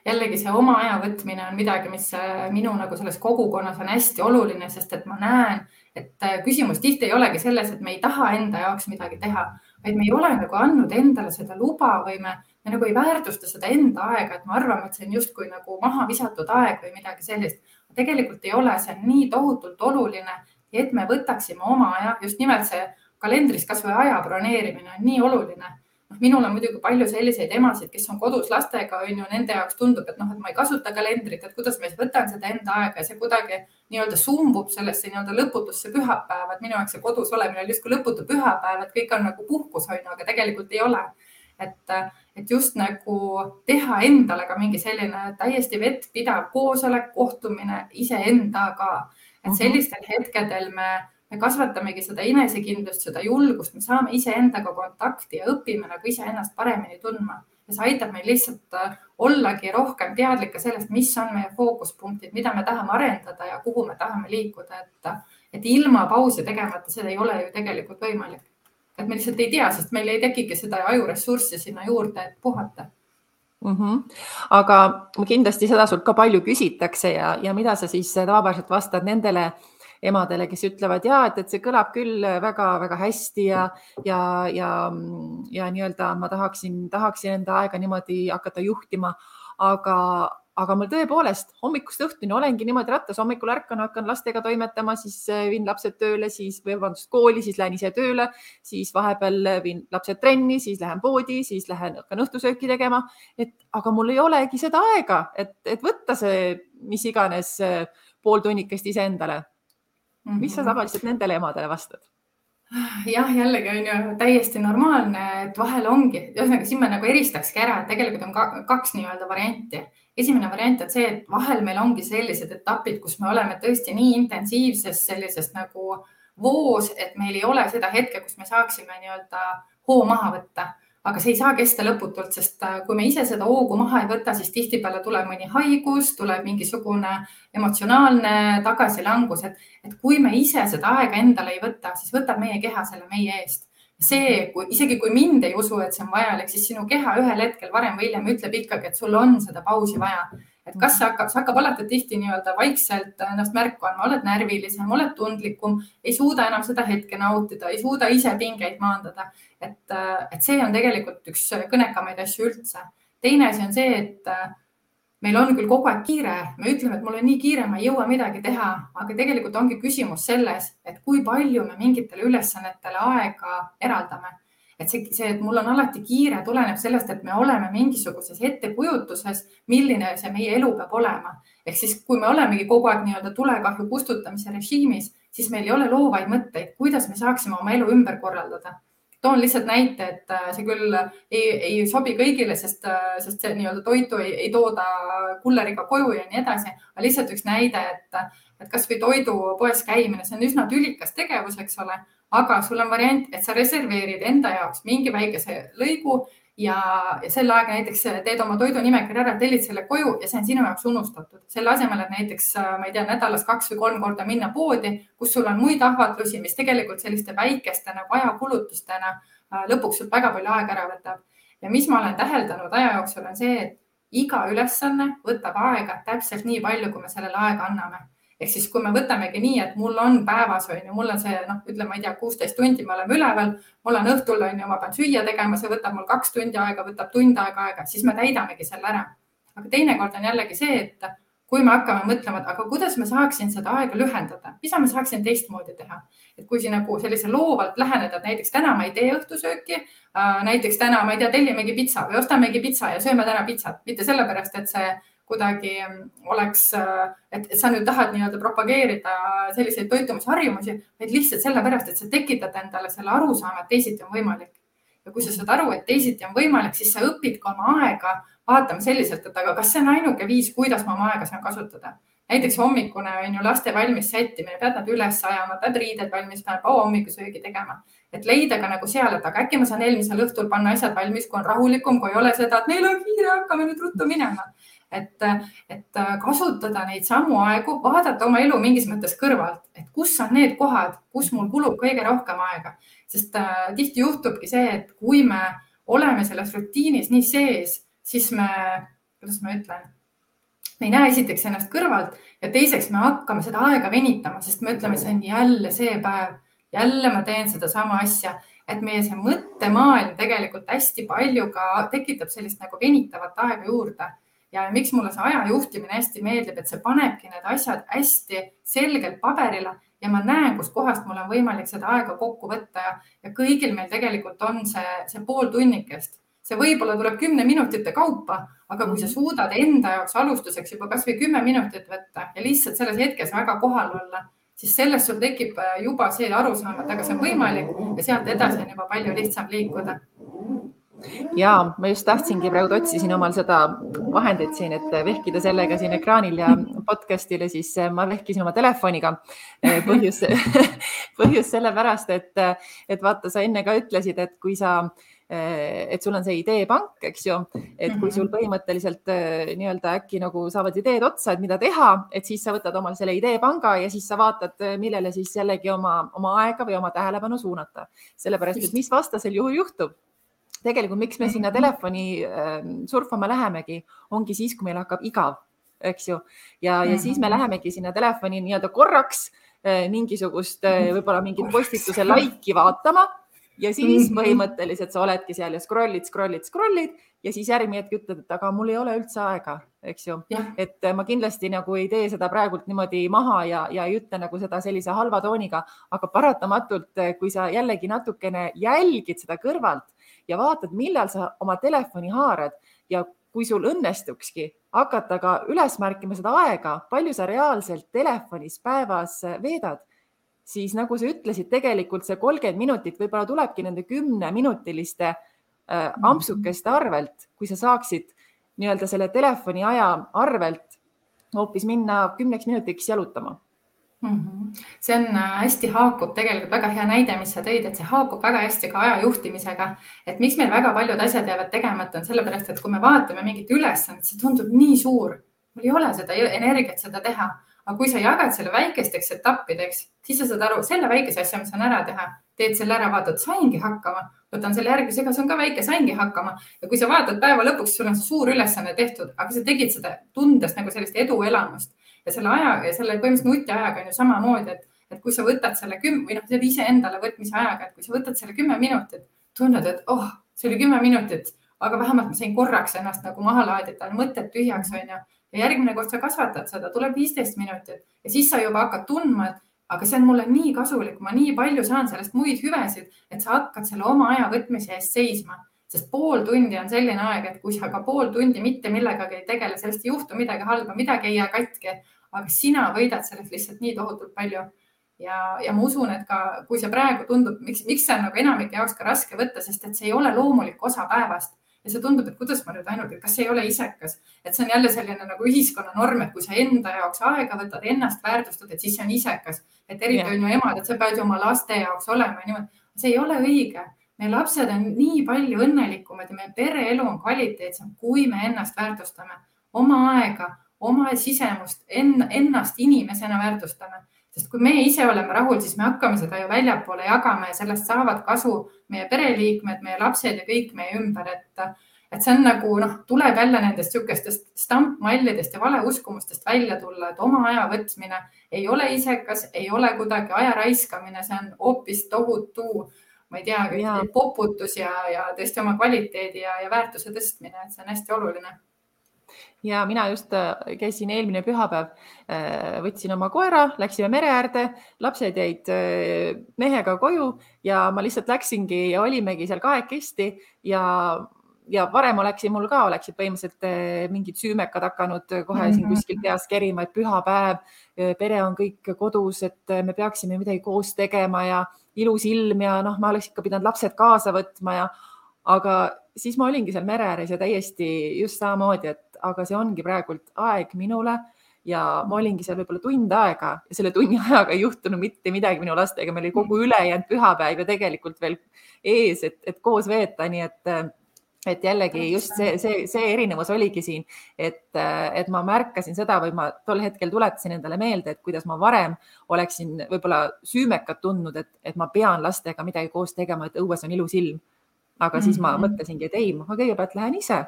jällegi see oma aja võtmine on midagi, mis minu nagu selles kogukonnas on hästi oluline, sest et ma näen, et küsimus tihti ei olegi selles, et me ei taha enda jaoks midagi teha, vaid me ei ole nagu andnud endale seda luba või me nagu ei väärtusta seda enda aega, et me arvame, et see on justkui nagu maha visatud aeg või midagi sellist. Tegelikult ei ole, see on nii tohutult oluline, et me võtaksime oma aja, just nimelt see kalendris kas või aja broneerimine on nii oluline. Minul on muidugi palju selliseid emasid, kes on kodus lastega, nende jaoks tundub, et ma ei kasuta kalendrit, et kuidas ma võtan seda enda aega ja see kuidagi nii-öelda sumbub sellesse nii-öelda lõputusse pühapäeva, et minu jaoks see kodus olemine on justkui lõputu pühapäev, et kõik on nagu puhkus, aga tegelikult ei ole. et just nagu teha endale ka mingi selline täiesti vettpidav koosolek, kohtumine iseendaga. Et sellistel hetkedel me kasvatamegi seda enesekindlust, seda julgust, me saame iseendaga kontakti ja õpime nagu iseennast paremini tundma. Ja see aitab meil lihtsalt ollagi rohkem teadlike sellest, mis on meie fookuspunktid, mida me tahame arendada ja kuhu me tahame liikuda. Et ilma pausi tegemata seda ei ole ju tegelikult võimalik. Et me lihtsalt ei tea, sest meil ei tekigi seda ajuressurssi sinna juurde, et puhata. Aga kindlasti seda sult ka palju küsitakse ja mida sa siis tavapäraselt vastad nendele emadele, kes ütlevad, et see kõlab küll väga-väga hästi ja nii-öelda ma tahaksin enda aega niimoodi hakata juhtima, aga mul tõepoolest hommikust õhtuni olengi niimoodi rattas, hommikul ärkan, hakkan lastega toimetama, siis viin lapsed tööle, siis kooli, siis lähen ise tööle, siis vahepeal viin lapsed trenni, siis lähen poodi, siis hakkan õhtusööki tegema, aga mul ei olegi seda aega, et võtta see mis iganes pool tunnikest iseendale. Mis sa tavaliselt nendele emadele vastad? Jah, jällegi on ju täiesti normaalne, et vahel ongi, ühesõnaga siin me nagu eristakski ära, et tegelikult on kaks nii-öelda varianti. Esimene variant on see, et vahel meil ongi sellised etapid, kus me oleme tõesti nii intensiivses sellises nagu voos, et meil ei ole seda hetke, kus me saaksime nii-öelda hoo maha võtta. Aga see ei saa kesta lõputult, sest kui me ise seda hoogu maha ei võta, siis tihtipeale tuleb mõni haigus, tuleb mingisugune emotsionaalne tagasilangus, et kui me ise seda aega endale ei võta, siis võtab meie keha selle meie eest. Isegi kui mind ei usu, et see on vajalik, siis sinu keha ühel hetkel varem või hiljem ütleb ikkagi, et sul on seda pausi vaja. Et kas see hakkab alati tihti nii-öelda vaikselt ennast märku andma, oled närvilisem, oled tundlikum, ei suuda enam seda hetke nautida, ei suuda ise pingeid maandada. Et see on tegelikult üks kõnekamaid asju üldse. Teine asi on see, et meil on küll kogu aeg kiire, me ütleme, et mul on nii kiire, ma ei jõua midagi teha, aga tegelikult ongi küsimus selles, et kui palju me mingitele ülesannetele aega eraldame. Et mul on alati kiire tuleneb sellest, et me oleme mingisuguses ettekujutuses, milline see meie elu peab olema. Ehk siis, kui me olemegi kogu aeg nii-öelda tulekahju kustutamise režiimis, siis meil ei ole loovaid mõtteid, kuidas me saaksime oma elu ümber korraldada. Toon lihtsalt näite, et see küll ei sobi kõigile, sest see nii-öelda toitu ei tooda kulleriga koju ja nii edasi. Aga lihtsalt üks näide, et kas või toidupoes käimine, see on üsna tülikas tegevus, eks ole. Aga sul on variant, et sa reserveerid enda jaoks mingi väikese lõigu ja selle aega näiteks teed oma toidunimekirja ära, tellid selle koju ja see on sinu jaoks unustatud. Selle asemel, et näiteks, ma ei tea, nädalas 2 või 3 korda minna poodi, kus sul on muid ahvatlusi, mis tegelikult selliste väikeste nagu ajakulutustena lõpuks sul väga palju aega ära võtab. Ja mis ma olen täheldanud aja jooksul on see, et iga ülesanne võtab aega täpselt nii palju, kui me sellele aega anname. Ehk siis, kui me võtamegi nii, et mul on päevas, mul on see, ütleme, ma ei tea, 16 tundi me oleme üleval, mul on õhtul, ma pean süüa tegema, see võtab mul 2 tundi aega, võtab tund aega, siis me täidamegi selle ära. Aga teinekord on jällegi see, et kui me hakkame mõtlema, aga kuidas me saaksin seda aega lühendada, mis ma saaksin teistmoodi teha. Et kui siin nagu sellise loovalt läheneda, et näiteks täna ma ei tee õhtusööki, näiteks täna, ma ei tea, tellimegi pitsa või ostamegi pitsa ja sööme täna pitsat, mitte sellepärast, et see kuidagi oleks, et sa nüüd tahad nii-öelda propageerida selliseid toitumisharjumusi, vaid lihtsalt sellepärast, et sa tekitad endale selle arusaama, et teisiti on võimalik. Ja kui sa saad aru, et teisiti on võimalik, siis sa õpid ka oma aega vaatama selliselt, et aga kas see on ainuke viis, kuidas ma oma aega saan kasutada. Näiteks hommikune on ju laste valmis sättimine, pead nad üles ajama, pead riided valmis, pead hommikusöögi tegema. Et leida ka nagu seal, et aga äkki ma saan eelmisel õhtul panna asjad valmis, kui on rahulikum, kui ei ole seda, et meil on kiire, hakkame nüüd ruttu minema. Et kasutada neid samu aegu, vaadata oma elu mingis mõttes kõrvalt, et kus on need kohad, kus mul kulub kõige rohkem aega. Sest tihti juhtubki see, et kui me oleme selles rutiinis nii sees, siis kuidas ma ütlen, me ei näe esiteks ennast kõrvalt ja teiseks me hakkame seda aega venitama, sest me ütleme, see on jälle see päev, jälle ma teen seda sama asja, et meie see mõttemaailm tegelikult hästi palju ka tekitab sellist nagu venitavat aega juurde. Ja miks mulle see aja juhtimine hästi meeldib, et see panebki need asjad hästi selgelt paberile ja ma näen, kus kohast mul on võimalik seda aega kokku võtta ja kõigil meil tegelikult on see pool tunnikest. See võib-olla tuleb 10 minutite kaupa, aga kui sa suudad enda jaoks alustuseks juba kas või 10 minutit võtta ja lihtsalt selles hetkes väga kohal olla, siis sellest sul tekib juba see arusaam, et aga see on võimalik ja sealt edasi on juba palju lihtsam liikuda. Ja ma just tahtsingi praegu otsisin omal seda vahendit siin, et vehkida sellega siin ekraanil ja podcastile, siis ma vehkisin oma telefoniga. Põhjus sellepärast, et vaata, sa enne ka ütlesid, et kui et sul on see ideepank, eks ju, et kui sul põhimõtteliselt nii-öelda äkki nagu saavad ideed otsa, et mida teha, et siis sa võtad omal selle ideepanga ja siis sa vaatad, millele siis jällegi oma aega või oma tähelepanu suunata. Sellepärast, et mis vastasel juhul juhtub? Tegelikult, miks me sinna telefoni surfama lähemegi, ongi siis, kui meil hakkab igav, eks ju. Ja siis me lähemegi sinna telefoni nii-öelda korraks mingisugust võib-olla mingit postituse laiki vaatama ja siis põhimõtteliselt sa oledki seal ja scrollid ja siis järgmine hetk ütled, et aga mul ei ole üldse aega, eks ju. Et ma kindlasti nagu ei tee seda praegult niimoodi maha ja ei ütle nagu seda sellise halva tooniga, aga paratamatult, kui sa jällegi natukene jälgid seda kõrvalt ja vaatad, millal sa oma telefoni haarad ja kui sul õnnestukski hakata ka üles märkima seda aega, palju sa reaalselt telefonis päevas veedad, siis nagu sa ütlesid, tegelikult see 30 minutit võib-olla tulebki nende 10-minutiliste ampsukeste arvelt, kui sa saaksid nii-öelda selle telefoni aja arvelt hoopis minna 10 minutiks jalutama. See on hästi haakub tegelikult väga hea näide, mis sa tõid, et see haakub väga hästi ka aja juhtimisega, et miks meil väga paljud asjad jäävad tegemata on sellepärast, et kui me vaatame mingit ülesannet, see tundub nii suur, mul ei ole seda energiat seda teha, aga kui sa jagad selle väikesteks etappideks, siis sa saad aru, selle väikese asja, mis saan ära teha, teed selle ära, vaatad, saingi hakkama, võtan selle järgmisega, see on ka väike, saingi hakkama ja kui sa vaatad päeva lõpuks, sul on see suur ülesanne tehtud, aga sa tegid seda tundes nagu sellist eduelamust. Ja selle aja ja selle põhimõtteliselt nutiajaga on ju samamoodi, et kui sa võtad selle 10 või noh, selle iseendale võtmise ajaga, et kui sa võtad selle 10 minutit, tunned, et see oli 10 minutit, aga vähemalt ma sain korraks ennast nagu maha laadida, mõtted tühjaks on ju. Ja järgmine kord sa kasvatad seda, tuleb 15 minutit ja siis sa juba hakkad tundma, et aga see on mulle nii kasulik, ma nii palju saan sellest muid hüvesid, et sa hakkad selle oma aja võtmise eest seisma. Sest pool tundi on selline aeg, et kui sa ka pool tundi mitte millegagi ei tegele, sellest ei juhtu midagi halba, midagi ei jää katki, aga sina võidad sellest lihtsalt nii tohutult palju. Ja ma usun, et ka kui see praegu tundub, miks see on nagu enamike jaoks ka raske võtta, sest et see ei ole loomulik osa päevast. Ja see tundub, et kuidas ma nüüd ainult, et kas see ei ole isekas. Et see on jälle selline nagu ühiskonna norm, et kui sa enda jaoks aega võtad, ennast väärtustad, et siis see on isekas. Et eriti on ju emad, et sa pead ju oma laste jaoks olema. See ei ole õige. Meie lapsed on nii palju õnnelikumad ja meie pereelu on kvaliteetsem, kui me ennast väärtustame. Oma aega, oma sisemust, ennast inimesena väärtustame. Sest kui me ise oleme rahul, siis me hakkame seda ju väljapoole jagama ja sellest saavad kasu meie pereliikmed, meie lapsed ja kõik meie ümber. Et see on nagu, tuleb jälle nendest sükestest stampmallidest ja valeuskumustest välja tulla, et oma aja võtmine ei ole isekas, ei ole kuidagi aja raiskamine, see on hoopis tohutu, ma ei tea, poputus ja tõesti oma kvaliteedi ja väärtuse tõstmine, et see on hästi oluline. Ja mina just käisin eelmine pühapäev, võtsin oma koera, läksime mere äärde, lapsed jäid mehega koju ja ma lihtsalt läksingi ja olimegi seal kahekesti ja varem oleksid põhimõtteliselt mingid süümekad hakanud kohe siin kuskil peas kerima, et pühapäev, pere on kõik kodus, et me peaksime midagi koos tegema ja ilus ilm ja ma oleks ikka pidanud lapsed kaasa võtma aga siis ma olingi seal mere ääres ja täiesti just samamoodi, et aga see ongi praegult aeg minule ja ma olingi seal võib-olla tund aega ja selle tunni ajaga ei juhtunud mitte midagi minu lastega, meil oli kogu ülejäänud pühapäev ja tegelikult veel ees, et koos veeta, nii et jällegi just see erinevus oligi siin, et ma märkasin seda või ma tol hetkel tuletasin endale meelde, et kuidas ma varem oleksin võib-olla süümekad tundnud, et ma pean lastega midagi koos tegema, et õues on ilus ilm. Aga siis ma mõtlesingi, et ei, ma kõigepealt lähen ise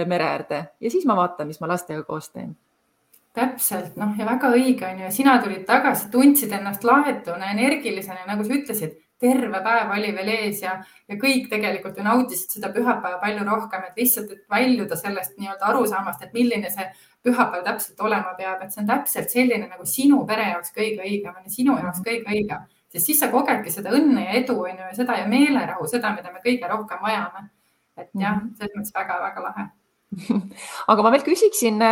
mere äärde ja siis ma vaatan, mis ma lastega koos teen. Täpselt, ja väga õige on ju. Sina tulid tagasi, tundsid ennast lahetuna, energilisena, nagu sa ütlesid, terve päev oli veel ees ja kõik tegelikult ju nautisid seda pühapäeva palju rohkem, et lihtsalt et väljuda sellest nii-öelda arusaamast, et milline see pühapäev täpselt olema peab, et see on täpselt selline nagu sinu pere jaoks kõige õigem, sinu jaoks kõige õigem. Sest siis sa kogedki seda õnne ja edu ja seda ja meelerahu, seda, mida me kõige rohkem vajame. Et jah, selles mõttes väga-väga lahe. Aga ma veel küsiksin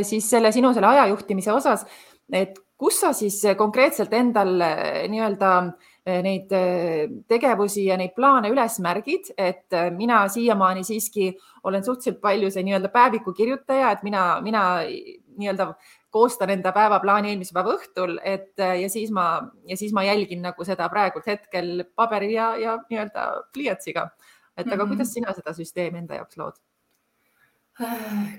siis sinu ajajuhtimise osas, et kus sa siis konkreetselt endal nii-öelda neid tegevusi ja neid plaane üles märgid, et mina siiamaani siiski olen suhteliselt palju see nii-öelda päeviku kirjutaja, et mina nii-öelda koostan enda päevaplaani eelmise päeva õhtul, ja siis ma jälgin nagu seda praegult hetkel paberi ja nii-öelda pliiatsiga. Et aga kuidas sina seda süsteemi enda jaoks lood?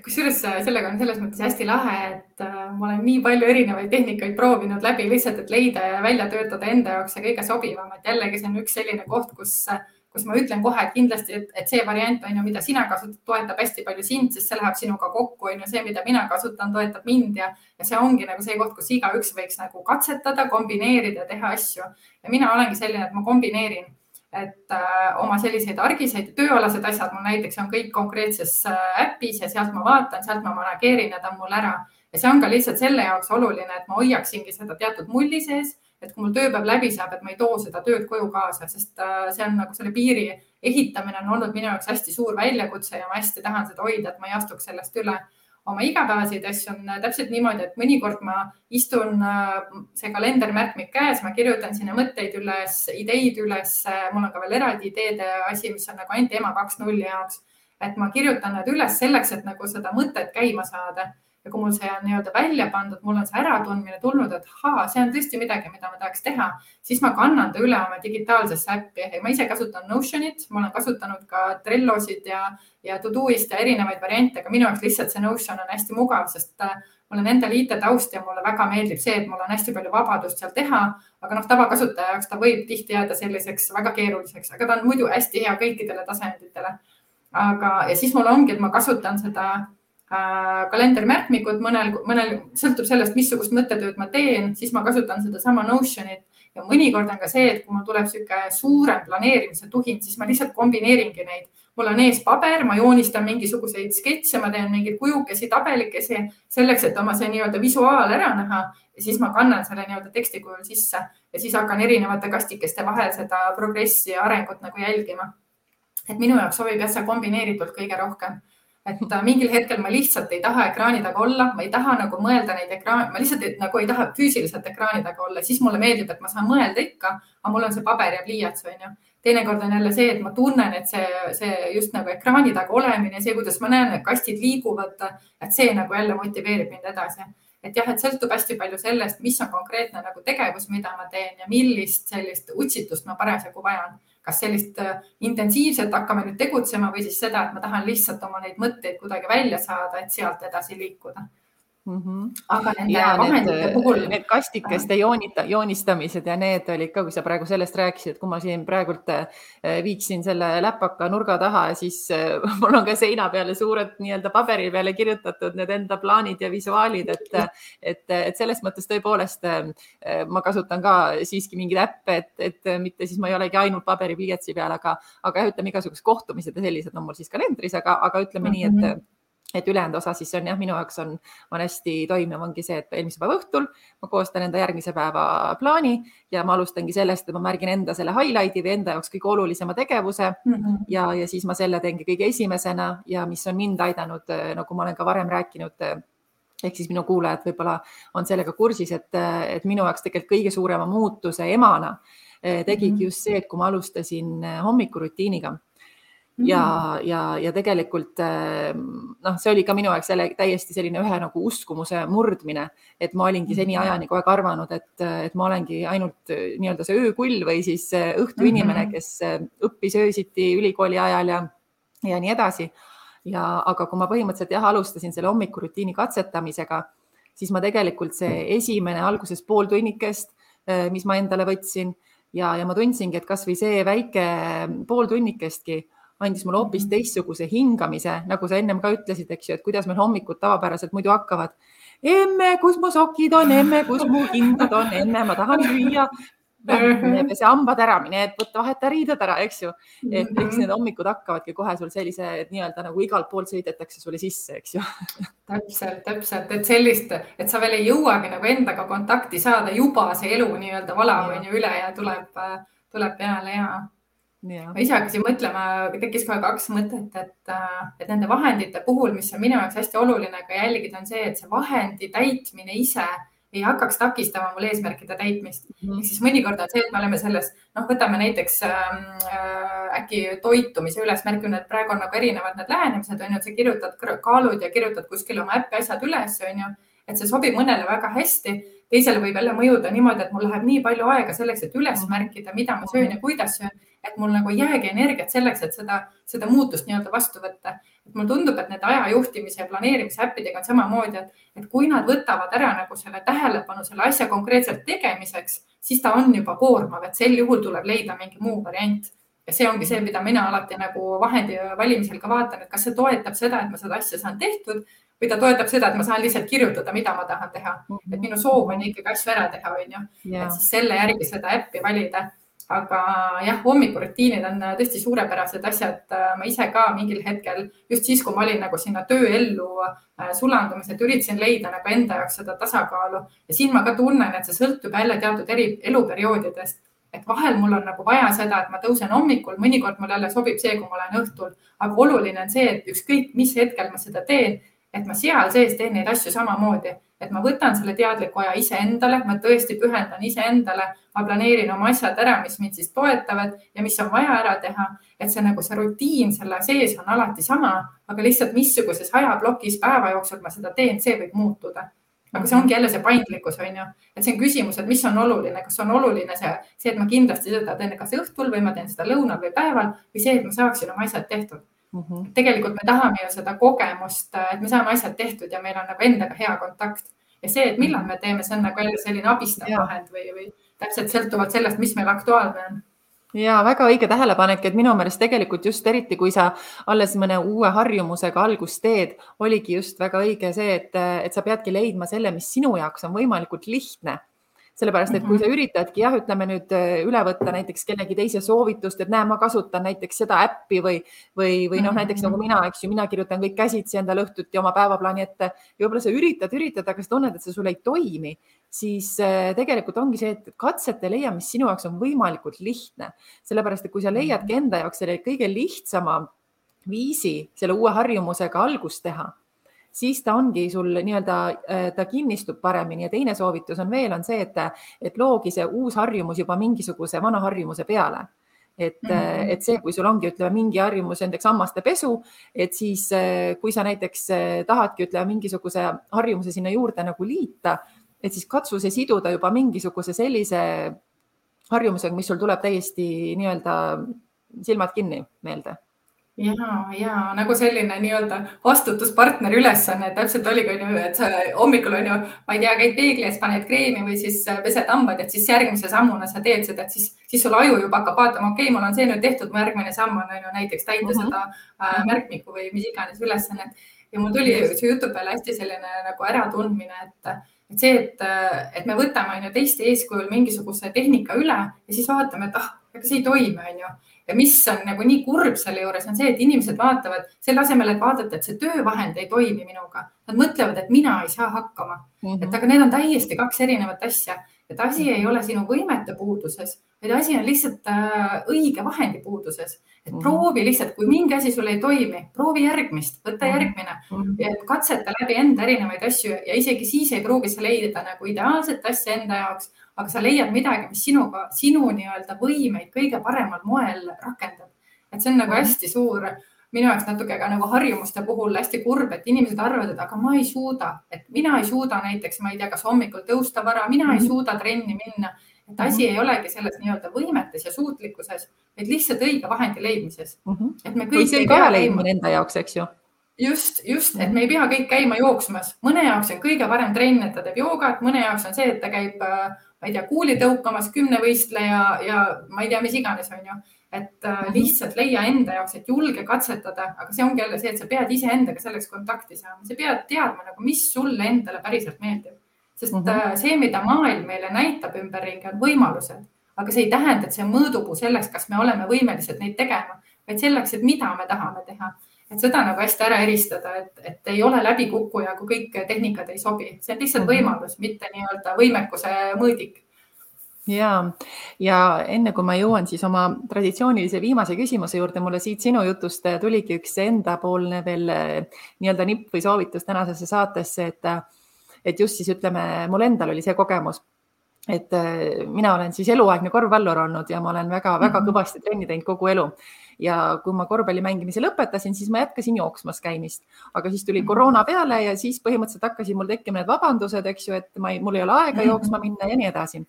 Kusjuures sellega on selles mõttes hästi lahe, et ma olen nii palju erinevaid tehnikaid proovinud läbi lihtsalt, et leida ja välja töötada enda jaoks see kõige sobivam. Et jällegi see on üks selline koht, kus ma ütlen kohe, et kindlasti, et see variant on ju, mida sina kasutad, toetab hästi palju sind, sest see läheb sinuga kokku, on ju see, mida mina kasutan, toetab mind ja see ongi nagu see koht, kus igaüks võiks nagu katsetada, kombineerida, teha asju. Ja mina olengi selline, et ma kombineerin, et oma selliseid argiseid tööalased asjad mul näiteks on kõik konkreetses äpis ja sealt ma vaatan, sealt ma manageerin ja ta on mul ära. Ja see on ka lihtsalt selle jaoks oluline, et ma hoiaksingi seda teatud mulli sees, et kui mul tööpäev läbi saab, et ma ei too seda tööd koju kaasa, sest see on nagu selle piiri ehitamine on olnud minu jaoks hästi suur väljakutse ja ma hästi tahan seda hoida, et ma ei astuks sellest üle. Oma igapäevaseid asju on täpselt niimoodi, et mõnikord ma istun see kalendermärkmik käes, ma kirjutan sinna mõtteid üles, ideid üles, mul on ka veel eraldi ideede asi, mis on nagu ainult EMA 2.0 jaoks, et ma kirjutan need üles selleks, et nagu seda mõtet käima saada. Ja kui mul see on nii-öelda välja pandud, mul on see äratundmine tulnud, et see on tõesti midagi, mida ma tahaks teha, siis ma kannan ta üle oma digitaalsesse äppi. Ma ise kasutan Notionit, ma olen kasutanud ka Trellosid ja Todoist ja erinevaid variante, aga minu jaoks lihtsalt see Notion on hästi mugav, sest mul on endal IT-taust ja mulle väga meeldib see, et mul on hästi palju vabadust seal teha, aga tavakasutaja jaoks ta võib tihti jääda selliseks väga keeruliseks, aga ta on muidu hästi hea kõikidele tasanditele. Ja siis mul ongi, et ma kasutan seda kalendermärkmikud, mõnel sõltub sellest, missugust mõttetööd ma teen, siis ma kasutan seda sama Notionit ja mõnikord on ka see, et kui mul tuleb siuke suurem planeerimise tuhin, siis ma lihtsalt kombineeringi neid. Mul on ees paber, ma joonistan mingisuguseid sketse, ma teen mingeid kujukesi, tabelikesi selleks, et oma see nii-öelda visuaal ära näha ja siis ma kannan selle nii-öelda teksti kujul sisse ja siis hakkan erinevate kastikeste vahel seda progressi ja arengut nagu jälgima. Et minu jaoks sobib jah see kombineeritult kõige rohkem. Et mingil hetkel ma lihtsalt ei taha ekraani taga olla, ma ei taha nagu mõelda neid ekraani, ma lihtsalt nagu ei taha füüsiliselt ekraani taga olla, siis mulle meeldib, et ma saan mõelda ikka, aga mul on see paber ja pliiats, on ju. Teinekord on jälle see, et ma tunnen, et see just nagu ekraani taga olemine, see, kuidas ma näen, et kastid liiguvad, et see nagu jälle motiveerib mind edasi. Et jah, et sõltub hästi palju sellest, mis on konkreetne nagu tegevus, mida ma teen ja millist sellist utsitust ma parasjagu vajan. Kas sellist intensiivselt hakkame nüüd tegutsema või siis seda, et ma tahan lihtsalt oma neid mõtteid kuidagi välja saada, et sealt edasi liikuda. Aga nende vahendite puhul... Need kastikeste joonistamised ja need olid ka, kui sa praegu sellest rääkisid, et kui ma siin praegult viiksin selle läpaka nurga taha, siis mul on ka seina peale suured nii-öelda paberi peale kirjutatud need enda plaanid ja visuaalid, et selles mõttes tõepoolest ma kasutan ka siiski mingid äppe, et mitte siis ma ei olegi ainult paberi pliiatsi peal, aga ütleme igasugused kohtumised ja sellised on mul siis kalendris, aga ütleme nii, et ülejäänud osa siis on jah, minu jaoks on hästi toimiv ongi see, et eelmise päeva õhtul ma koostan enda järgmise päeva plaani ja ma alustangi sellest, et ma märgin enda selle highlight'i või enda jaoks kõige olulisema tegevuse ja siis ma selle teengi kõige esimesena ja mis on mind aidanud, nagu ma olen ka varem rääkinud, ehk siis minu kuulajad võib-olla on sellega kursis, et minu jaoks tegelikult kõige suurema muutuse emana tegigi just see, et kui ma alustasin hommikurutiiniga. Ja tegelikult see oli ka minu jaoks täiesti selline ühe nagu uskumuse murdmine, et ma olingi seni ajani kogu aeg arvanud, et ma olengi ainult nii-öelda see öökull või siis õhtuinimene, kes õppis öösiti ülikooli ajal ja nii edasi. Aga kui ma põhimõtteliselt alustasin selle hommikurutiini katsetamisega, siis ma tegelikult see esimene alguses pool tunnikest, mis ma endale võtsin ja ma tundsingi, et kas või see väike pool tunnikestki andis mulle hoopis teistsuguse hingamise, nagu sa ennem ka ütlesid, eks ju, et kuidas meil hommikud tavapäraselt muidu hakkavad. Emme, kus mu sokid on, emme, kus mu kindad on, emme, ma tahan süüa. See hambad ära, mine, et võtta vaheta riided ära, eks ju. Et eks need hommikud hakkavadki kohe sul sellise nii-öelda nagu igalt poolt sõidetakse sulle sisse, eks ju. Täpselt, et sellist, et sa veel ei jõuagi nagu endaga kontakti saada, juba see elu nii-öelda valab on ju üle ja tuleb peale ja... Ma ise hakkasin mõtlema, tekkis kohe 2 mõtet, et nende vahendite puhul, mis on minu jaoks hästi oluline ka jälgida, on see, et see vahendi täitmine ise ei hakkaks takistama mul eesmärkide täitmist. Ehk siis mõnikord on see, et me oleme selles, võtame näiteks äkki toitumise üles, märgin, et praegu on nagu erinevad need lähenemised, on ju, et sa kirjutad kaalud ja kirjutad kuskil oma äppi asjad üles, on ju, et see sobib mõnele väga hästi. Teisele võib jälle mõjuda niimoodi, et mul läheb nii palju aega selleks, et üles märkida, mida ma söön ja kuidas söön, et mul nagu ei jäägi energiat selleks, et seda muutust nii-öelda vastu võtta. Et mul tundub, et need ajajuhtimise ja planeerimise äppidega on samamoodi, et kui nad võtavad ära nagu selle tähelepanu selle asja konkreetselt tegemiseks, siis ta on juba koormav, et sel juhul tuleb leida mingi muu variant. Ja see ongi see, mida mina alati nagu vahendi valimisel ka vaatan, et kas see toetab seda, et ma seda asja saan tehtud või ta toetab seda, et ma saan lihtsalt kirjutada, mida ma tahan teha. Et minu soov on ikkagi asju ära teha, on ju. Et siis selle järgi seda äppi valida. Aga jah, hommikurutiinid on tõesti suurepärased asjad. Ma ise ka mingil hetkel, just siis, kui ma olin nagu sinna tööellu sulandumisel, üritasin leida nagu enda jaoks seda tasakaalu. Ja siin ma ka tunnen, et see sõltub jälle teatud eluperioodidest. Et vahel mul on nagu vaja seda, et ma tõusen hommikul, mõnikord mul jälle sobib see, kui ma olen õhtul. Aga oluline on see, et ükskõik mis hetkel ma seda teen, et ma seal sees teen neid asju samamoodi, et ma võtan selle teadliku aja iseendale, ma tõesti pühendan iseendale, ma planeerin oma asjad ära, mis mind siis toetavad ja mis on vaja ära teha, et see nagu see rutiin selle sees on alati sama, aga lihtsalt missuguses ajablokis päeva jooksul ma seda teen, see võib muutuda. Aga see ongi jälle see paindlikkus, on ju, et see on küsimus, et mis on oluline, kas on oluline see, et ma kindlasti seda teen kas õhtul või ma teen seda lõunal või päeval või see, et ma saaksin oma asjad tehtud. Tegelikult me tahame ju seda kogemust, et me saame asjad tehtud ja meil on nagu endaga hea kontakt. Ja see, et millal me teeme, see on nagu jälle selline abistav vahend või täpselt sõltuvalt sellest, mis meil aktuaalne on. Ja väga õige tähelepanek, et minu meelest tegelikult just eriti, kui sa alles mõne uue harjumusega algust teed, oligi just väga õige see, et sa peadki leidma selle, mis sinu jaoks on võimalikult lihtne. Sellepärast, et kui sa üritadki, ütleme nüüd üle võtta näiteks kellegi teise soovitust, et näe, ma kasutan näiteks seda äppi või näiteks nagu mina, eks ju, mina kirjutan kõik käsitsi endale õhtuti oma päevaplaani ette ja võib-olla sa üritad, aga sa tunned, et see sul ei toimi, siis tegelikult ongi see, et katsete leia, mis sinu jaoks on võimalikult lihtne. Sellepärast, et kui sa leiadki enda jaoks selle kõige lihtsama viisi selle uue harjumusega algust teha, siis ta ongi sul nii-öelda, ta kinnistub paremini ja teine soovitus on veel, on see, et loogi see uus harjumus juba mingisuguse vana harjumuse peale. Et see, kui sul ongi, ütleme, mingi harjumus näiteks hammaste pesu, et siis kui sa näiteks tahadki, ütleme, mingisuguse harjumuse sinna juurde nagu liita, et siis katsu see siduda juba mingisuguse sellise harjumusega, mis sul tuleb täiesti nii-öelda silmad kinni meelde. Ja nagu selline nii-öelda vastutuspartner ülesanne, täpselt oligi, et sa hommikul on ju, ma ei tea, käid peegli ees, paned kreemi või siis pesed hambad, et siis järgmise sammuna sa teed seda, et siis sul aju juba hakkab vaatama, okei, mul on see nüüd tehtud, mu järgmine samm on ju näiteks täita seda märkmiku või mis iganes ülesannet. Ja mul tuli see jutu peale hästi selline nagu äratundmine, et see, et me võtame teiste eeskujul mingisuguse tehnika üle ja siis vaatame, et ega see ei toimi, on ju. Ja mis on nagu nii kurb selle juures on see, et inimesed vaatavad selle asemel, et vaadata, et see töövahend ei toimi minuga. Nad mõtlevad, et mina ei saa hakkama. Et aga need on täiesti kaks erinevat asja. Et asi ei ole sinu võimete puuduses, vaid asi on lihtsalt õige vahendi puuduses. Et proovi lihtsalt, kui mingi asi sul ei toimi, proovi järgmist, võtta järgmine. Katseta läbi enda erinevaid asju ja isegi siis ei proovi sa leida nagu ideaalset asja enda jaoks, aga sa leiad midagi, mis sinu nii-öelda võimeid kõige paremal moel rakendab. Et see on nagu hästi suur, minu jaoks natuke ka nagu harjumuste puhul hästi kurb, et inimesed arvavad, et aga ma ei suuda, et mina ei suuda näiteks, ma ei tea, kas hommikul tõusta vara, mina ei suuda trenni minna. Et asi ei olegi selles nii-öelda võimetes ja suutlikkuses, vaid lihtsalt õige vahendi leidmises. Et me kõik ei pea leidmine enda jaoks, eks ju? Just, et me ei pea kõik käima jooksmas. Mõne jaoks on kõige parem trenn, et ta teeb joogat, mõne jaoks on see, et ta käib, ma ei tea, kuuli tõukamas 10 võistleja ja ma ei tea, mis iganes on ju. Et lihtsalt leia enda jaoks, et julge katsetada, aga see ongi jälle see, et sa pead ise endaga selleks kontakti saama. Sa pead teadma, nagu, mis sulle endale päriselt meeldib. Sest see, mida maailm meile näitab ümberringi, on võimalused, aga see ei tähenda, et see on mõõdupuu selleks, kas me oleme võimelised neid tegema, vaid selleks, et mida me tahame teha. Et seda nagu hästi ära eristada, et ei ole läbikukkuja, kui kõik tehnikad ei sobi. See on lihtsalt võimalus, mitte nii-öelda võimekuse mõõdik. Ja enne kui ma jõuan siis oma traditsioonilise viimase küsimuse juurde, mulle siit sinu jutust tuligi üks endapoolne veel nii-öelda nipp või soovitus tänasesse saatesse, et just siis ütleme, mul endal oli see kogemus, et mina olen siis eluaegne korvpallur olnud ja ma olen väga kõvasti trenni teinud kogu elu. Ja kui ma korvpalli mängimise lõpetasin, siis ma jätkasin jooksmas käimist, aga siis tuli koroona peale ja siis põhimõtteliselt hakkasid mul tekkima need vabandused, eks ju, et mul ei ole aega jooksma minna ja nii edasi.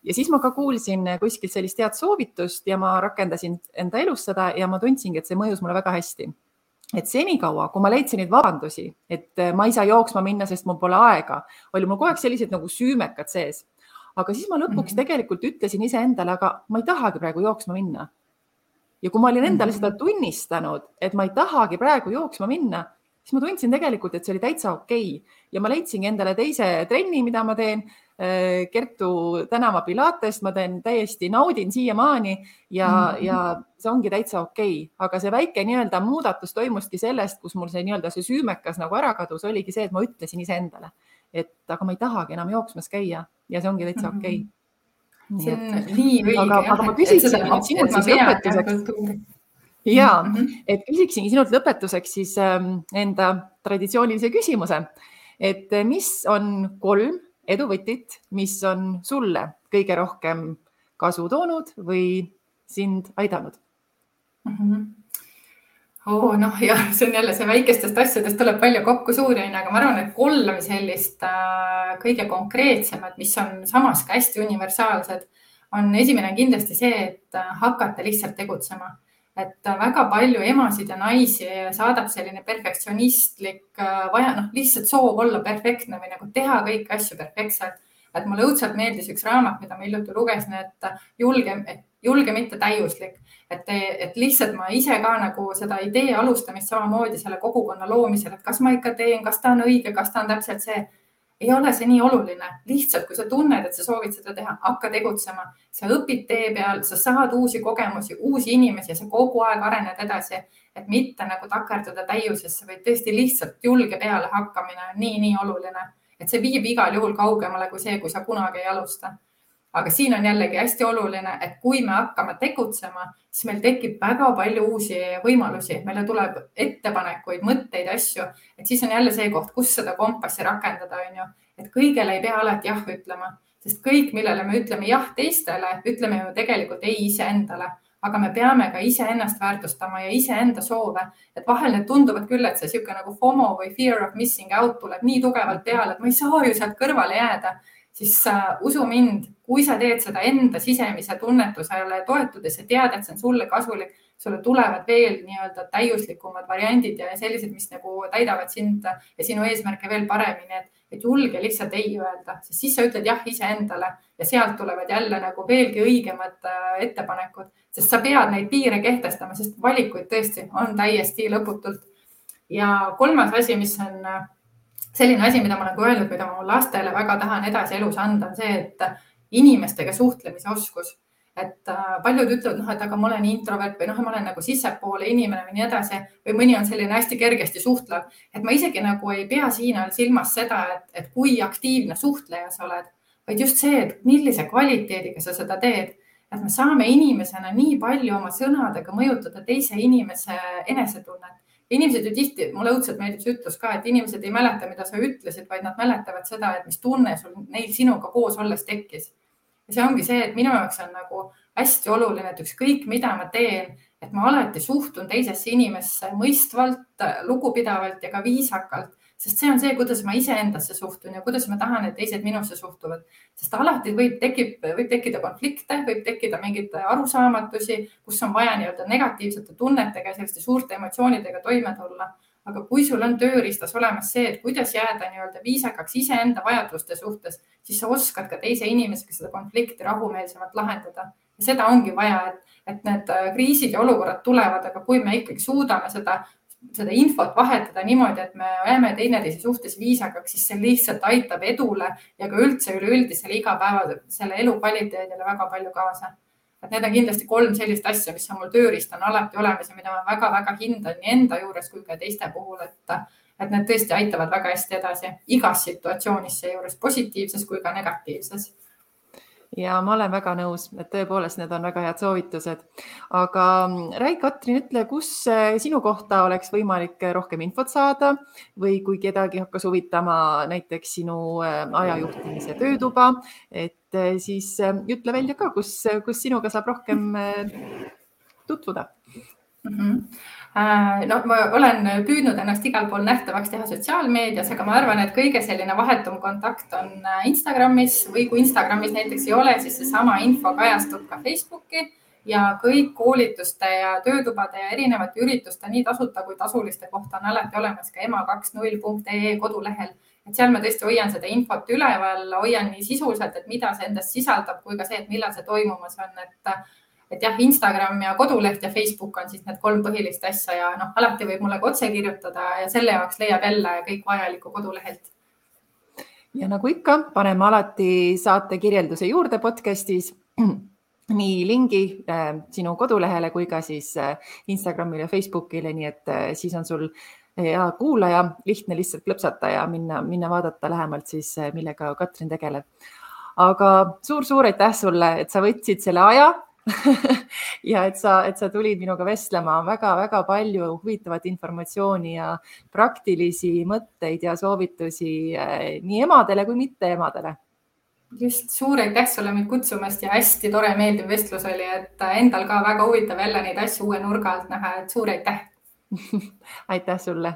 Ja siis ma ka kuulsin kuskilt sellist head soovitust ja ma rakendasin enda elus seda ja ma tundsingi, et see mõjus mulle väga hästi. Et senikaua, kui ma leidsin neid vabandusi, et ma ei saa jooksma minna, sest mul pole aega, oli mul kogu aeg sellised nagu süümekad sees. Aga siis ma lõpuks tegelikult ütlesin iseendale, aga ma ei tahagi praegu jooksma minna. Ja kui ma olin endale seda tunnistanud, et ma ei tahagi praegu jooksma minna, siis ma tundsin tegelikult, et see oli täitsa okei. Ja ma leidsingi endale teise trenni, mida ma teen, Kertu tänava pilatest, ma teen täiesti naudin siiamaani ja see ongi täitsa okei. Aga see väike nii-öelda muudatus toimuski sellest, kus mul see nii-öelda see süümekas nagu ära kadus, oligi see, et ma ütlesin iseendale, et aga ma ei tahagi enam jooksmas käia ja see ongi täitsa okei. See on nii õige. Aga ma küsiksin sinult siis lõpetuseks. Jaa, et küsiksingi sinult lõpetuseks siis enda traditsioonilise küsimuse, et mis on 3 eduvõtit, mis on sulle kõige rohkem kasu toonud või sind aidanud? See on jälle see väikestest asjadest tuleb palju kokku suuri, aga ma arvan, et 3 sellist kõige konkreetsemad, mis on samas ka hästi universaalsed, on esimene kindlasti see, et hakata lihtsalt tegutsema. Et väga palju emasid ja naisi saadab selline perfektsionistlik, lihtsalt soov olla perfektne või nagu teha kõiki asju perfektselt. Et mulle õudselt meeldis üks raamat, mida ma hiljuti lugesin, et julge mitte täiuslik. Et lihtsalt ma ise ka nagu seda idee alustamist samamoodi selle kogukonna loomisel, et kas ma ikka teen, kas ta on õige, kas ta on täpselt see. Ei ole see nii oluline. Lihtsalt, kui sa tunned, et sa soovid seda teha, hakka tegutsema. Sa õpid tee peal, sa saad uusi kogemusi, uusi inimesi ja sa kogu aeg arened edasi, et mitte nagu takerduda täiusesse, vaid tõesti lihtsalt julge peale hakkamine on nii oluline, et see viib igal juhul kaugemale kui see, kui sa kunagi ei alusta. Aga siin on jällegi hästi oluline, et kui me hakkame tegutsema, siis meil tekib väga palju uusi võimalusi. Meile tuleb ettepanekuid, mõtteid, asju, et siis on jälle see koht, kus seda kompassi rakendada, on ju. Et kõigele ei pea alati jah ütlema, sest kõik, millele me ütleme jah teistele, ütleme ju tegelikult ei iseendale, aga me peame ka iseennast väärtustama ja iseenda soove. Et vahel need tunduvad küll, et see siuke nagu FOMO või fear of missing out tuleb nii tugevalt peale, et ma ei saa ju sealt kõrvale jääda. Siis usu mind, kui sa teed seda enda sisemise tunnetusele toetudes ja tead, et see on sulle kasulik, sulle tulevad veel nii-öelda täiuslikumad variandid ja sellised, mis nagu täidavad sind ja sinu eesmärke veel paremini, et julge lihtsalt ei öelda, sest siis sa ütled jah iseendale ja sealt tulevad jälle nagu veelgi õigemad ettepanekud, sest sa pead neid piire kehtestama, sest valikuid tõesti on täiesti lõputult. Ja 3. asi, mis on selline asi, mida ma olen öelnud, mida ma lastele väga tahan edasi elus anda, on see, et inimestega suhtlemise oskus. Et paljud ütlevad, et aga ma olen introvert või ma olen nagu sissepoole inimene või nii edasi või mõni on selline hästi kergesti suhtlev. Et ma isegi nagu ei pea siin silmas seda, et kui aktiivne suhtleja sa oled, vaid just see, et millise kvaliteediga sa seda teed. Et me saame inimesena nii palju oma sõnadega mõjutada teise inimese enesetunnet. Inimesed ju tihti, mulle õudselt meeldib see ütlus ka, et inimesed ei mäleta, mida sa ütlesid, vaid nad mäletavad seda, et mis tunne sul neil sinuga koos olles tekkis. Ja see ongi see, et minu jaoks on nagu hästi oluline, et ükskõik mida ma teen, et ma alati suhtun teisesse inimesse mõistvalt, lugupidavalt ja ka viisakalt, sest see on see, kuidas ma iseendasse suhtun ja kuidas ma tahan, et teised minusse suhtuvad. Sest alati võib tekkida konflikte, võib tekkida mingid arusaamatusi, kus on vaja nii-öelda negatiivsete tunnetega ja selliste suurte emotsioonidega toime tulla. Aga kui sul on tööriistas olemas see, et kuidas jääda nii-öelda viisakaks iseenda vajaduste suhtes, siis sa oskad ka teise inimesega seda konflikti rahumeelsemalt lahendada. Ja seda ongi vaja, et need kriisid ja olukorrad tulevad, aga kui me ikkagi suudame seda infot vahetada niimoodi, et me jääme teineteise suhtes viisakaks, siis see lihtsalt aitab edule ja ka üldse üleüldisele igapäeva selle elu kvaliteedile väga palju kaasa. Et need on kindlasti 3 sellist asja, mis on mul tööriist on alati olemas ja mida ma väga-väga hindan nii enda juures kui ka teiste puhul, et need tõesti aitavad väga hästi edasi igas situatsioonis seejuures positiivses kui ka negatiivses. Ja ma olen väga nõus, et tõepoolest need on väga head soovitused. Aga räägi, Katrin, ütle, kus sinu kohta oleks võimalik rohkem infot saada või kui kedagi hakkas huvitama näiteks sinu ajajuhtimise töötuba, et siis ütle välja ka, kus sinuga saab rohkem tutvuda. No, ma olen püüdnud ennast igal pool nähtavaks teha sotsiaalmeedias, aga ma arvan, et kõige selline vahetum kontakt on Instagramis või kui Instagramis näiteks ei ole, siis seesama info kajastub ka Facebooki ja kõik koolituste ja töötubade ja erinevate ürituste nii tasuta kui tasuliste kohta on alati olemas ka ema20.ee kodulehel. Et seal ma tõesti hoian seda infot üleval, hoian nii sisuliselt, et mida see endast sisaldab, kui ka see, et millal see toimumas on, et jah, Instagram ja koduleht ja Facebook on siis need 3 põhilist asja ja alati võib mulle ka otse kirjutada ja selle jaoks leiab jälle kõik vajalikku kodulehelt. Ja nagu ikka, paneme alati saate kirjelduse juurde podcastis nii lingi sinu kodulehele kui ka siis Instagramile ja Facebookile, nii et siis on sul ja kuulaja lihtne lihtsalt klõpsata ja minna vaadata lähemalt siis, millega Katrin tegeleb. Aga suur aitäh sulle, et sa võtsid selle aja ja et sa tulid minuga vestlema, väga palju huvitavat informatsiooni ja praktilisi mõtteid ja soovitusi nii emadele kui mitte emadele. Just, suur aitäh sulle mind kutsumast ja hästi tore meeldiv vestlus oli, et endal ka väga huvitav jälle neid asju uue nurga alt näha, et suur aitäh. Aitäh sulle.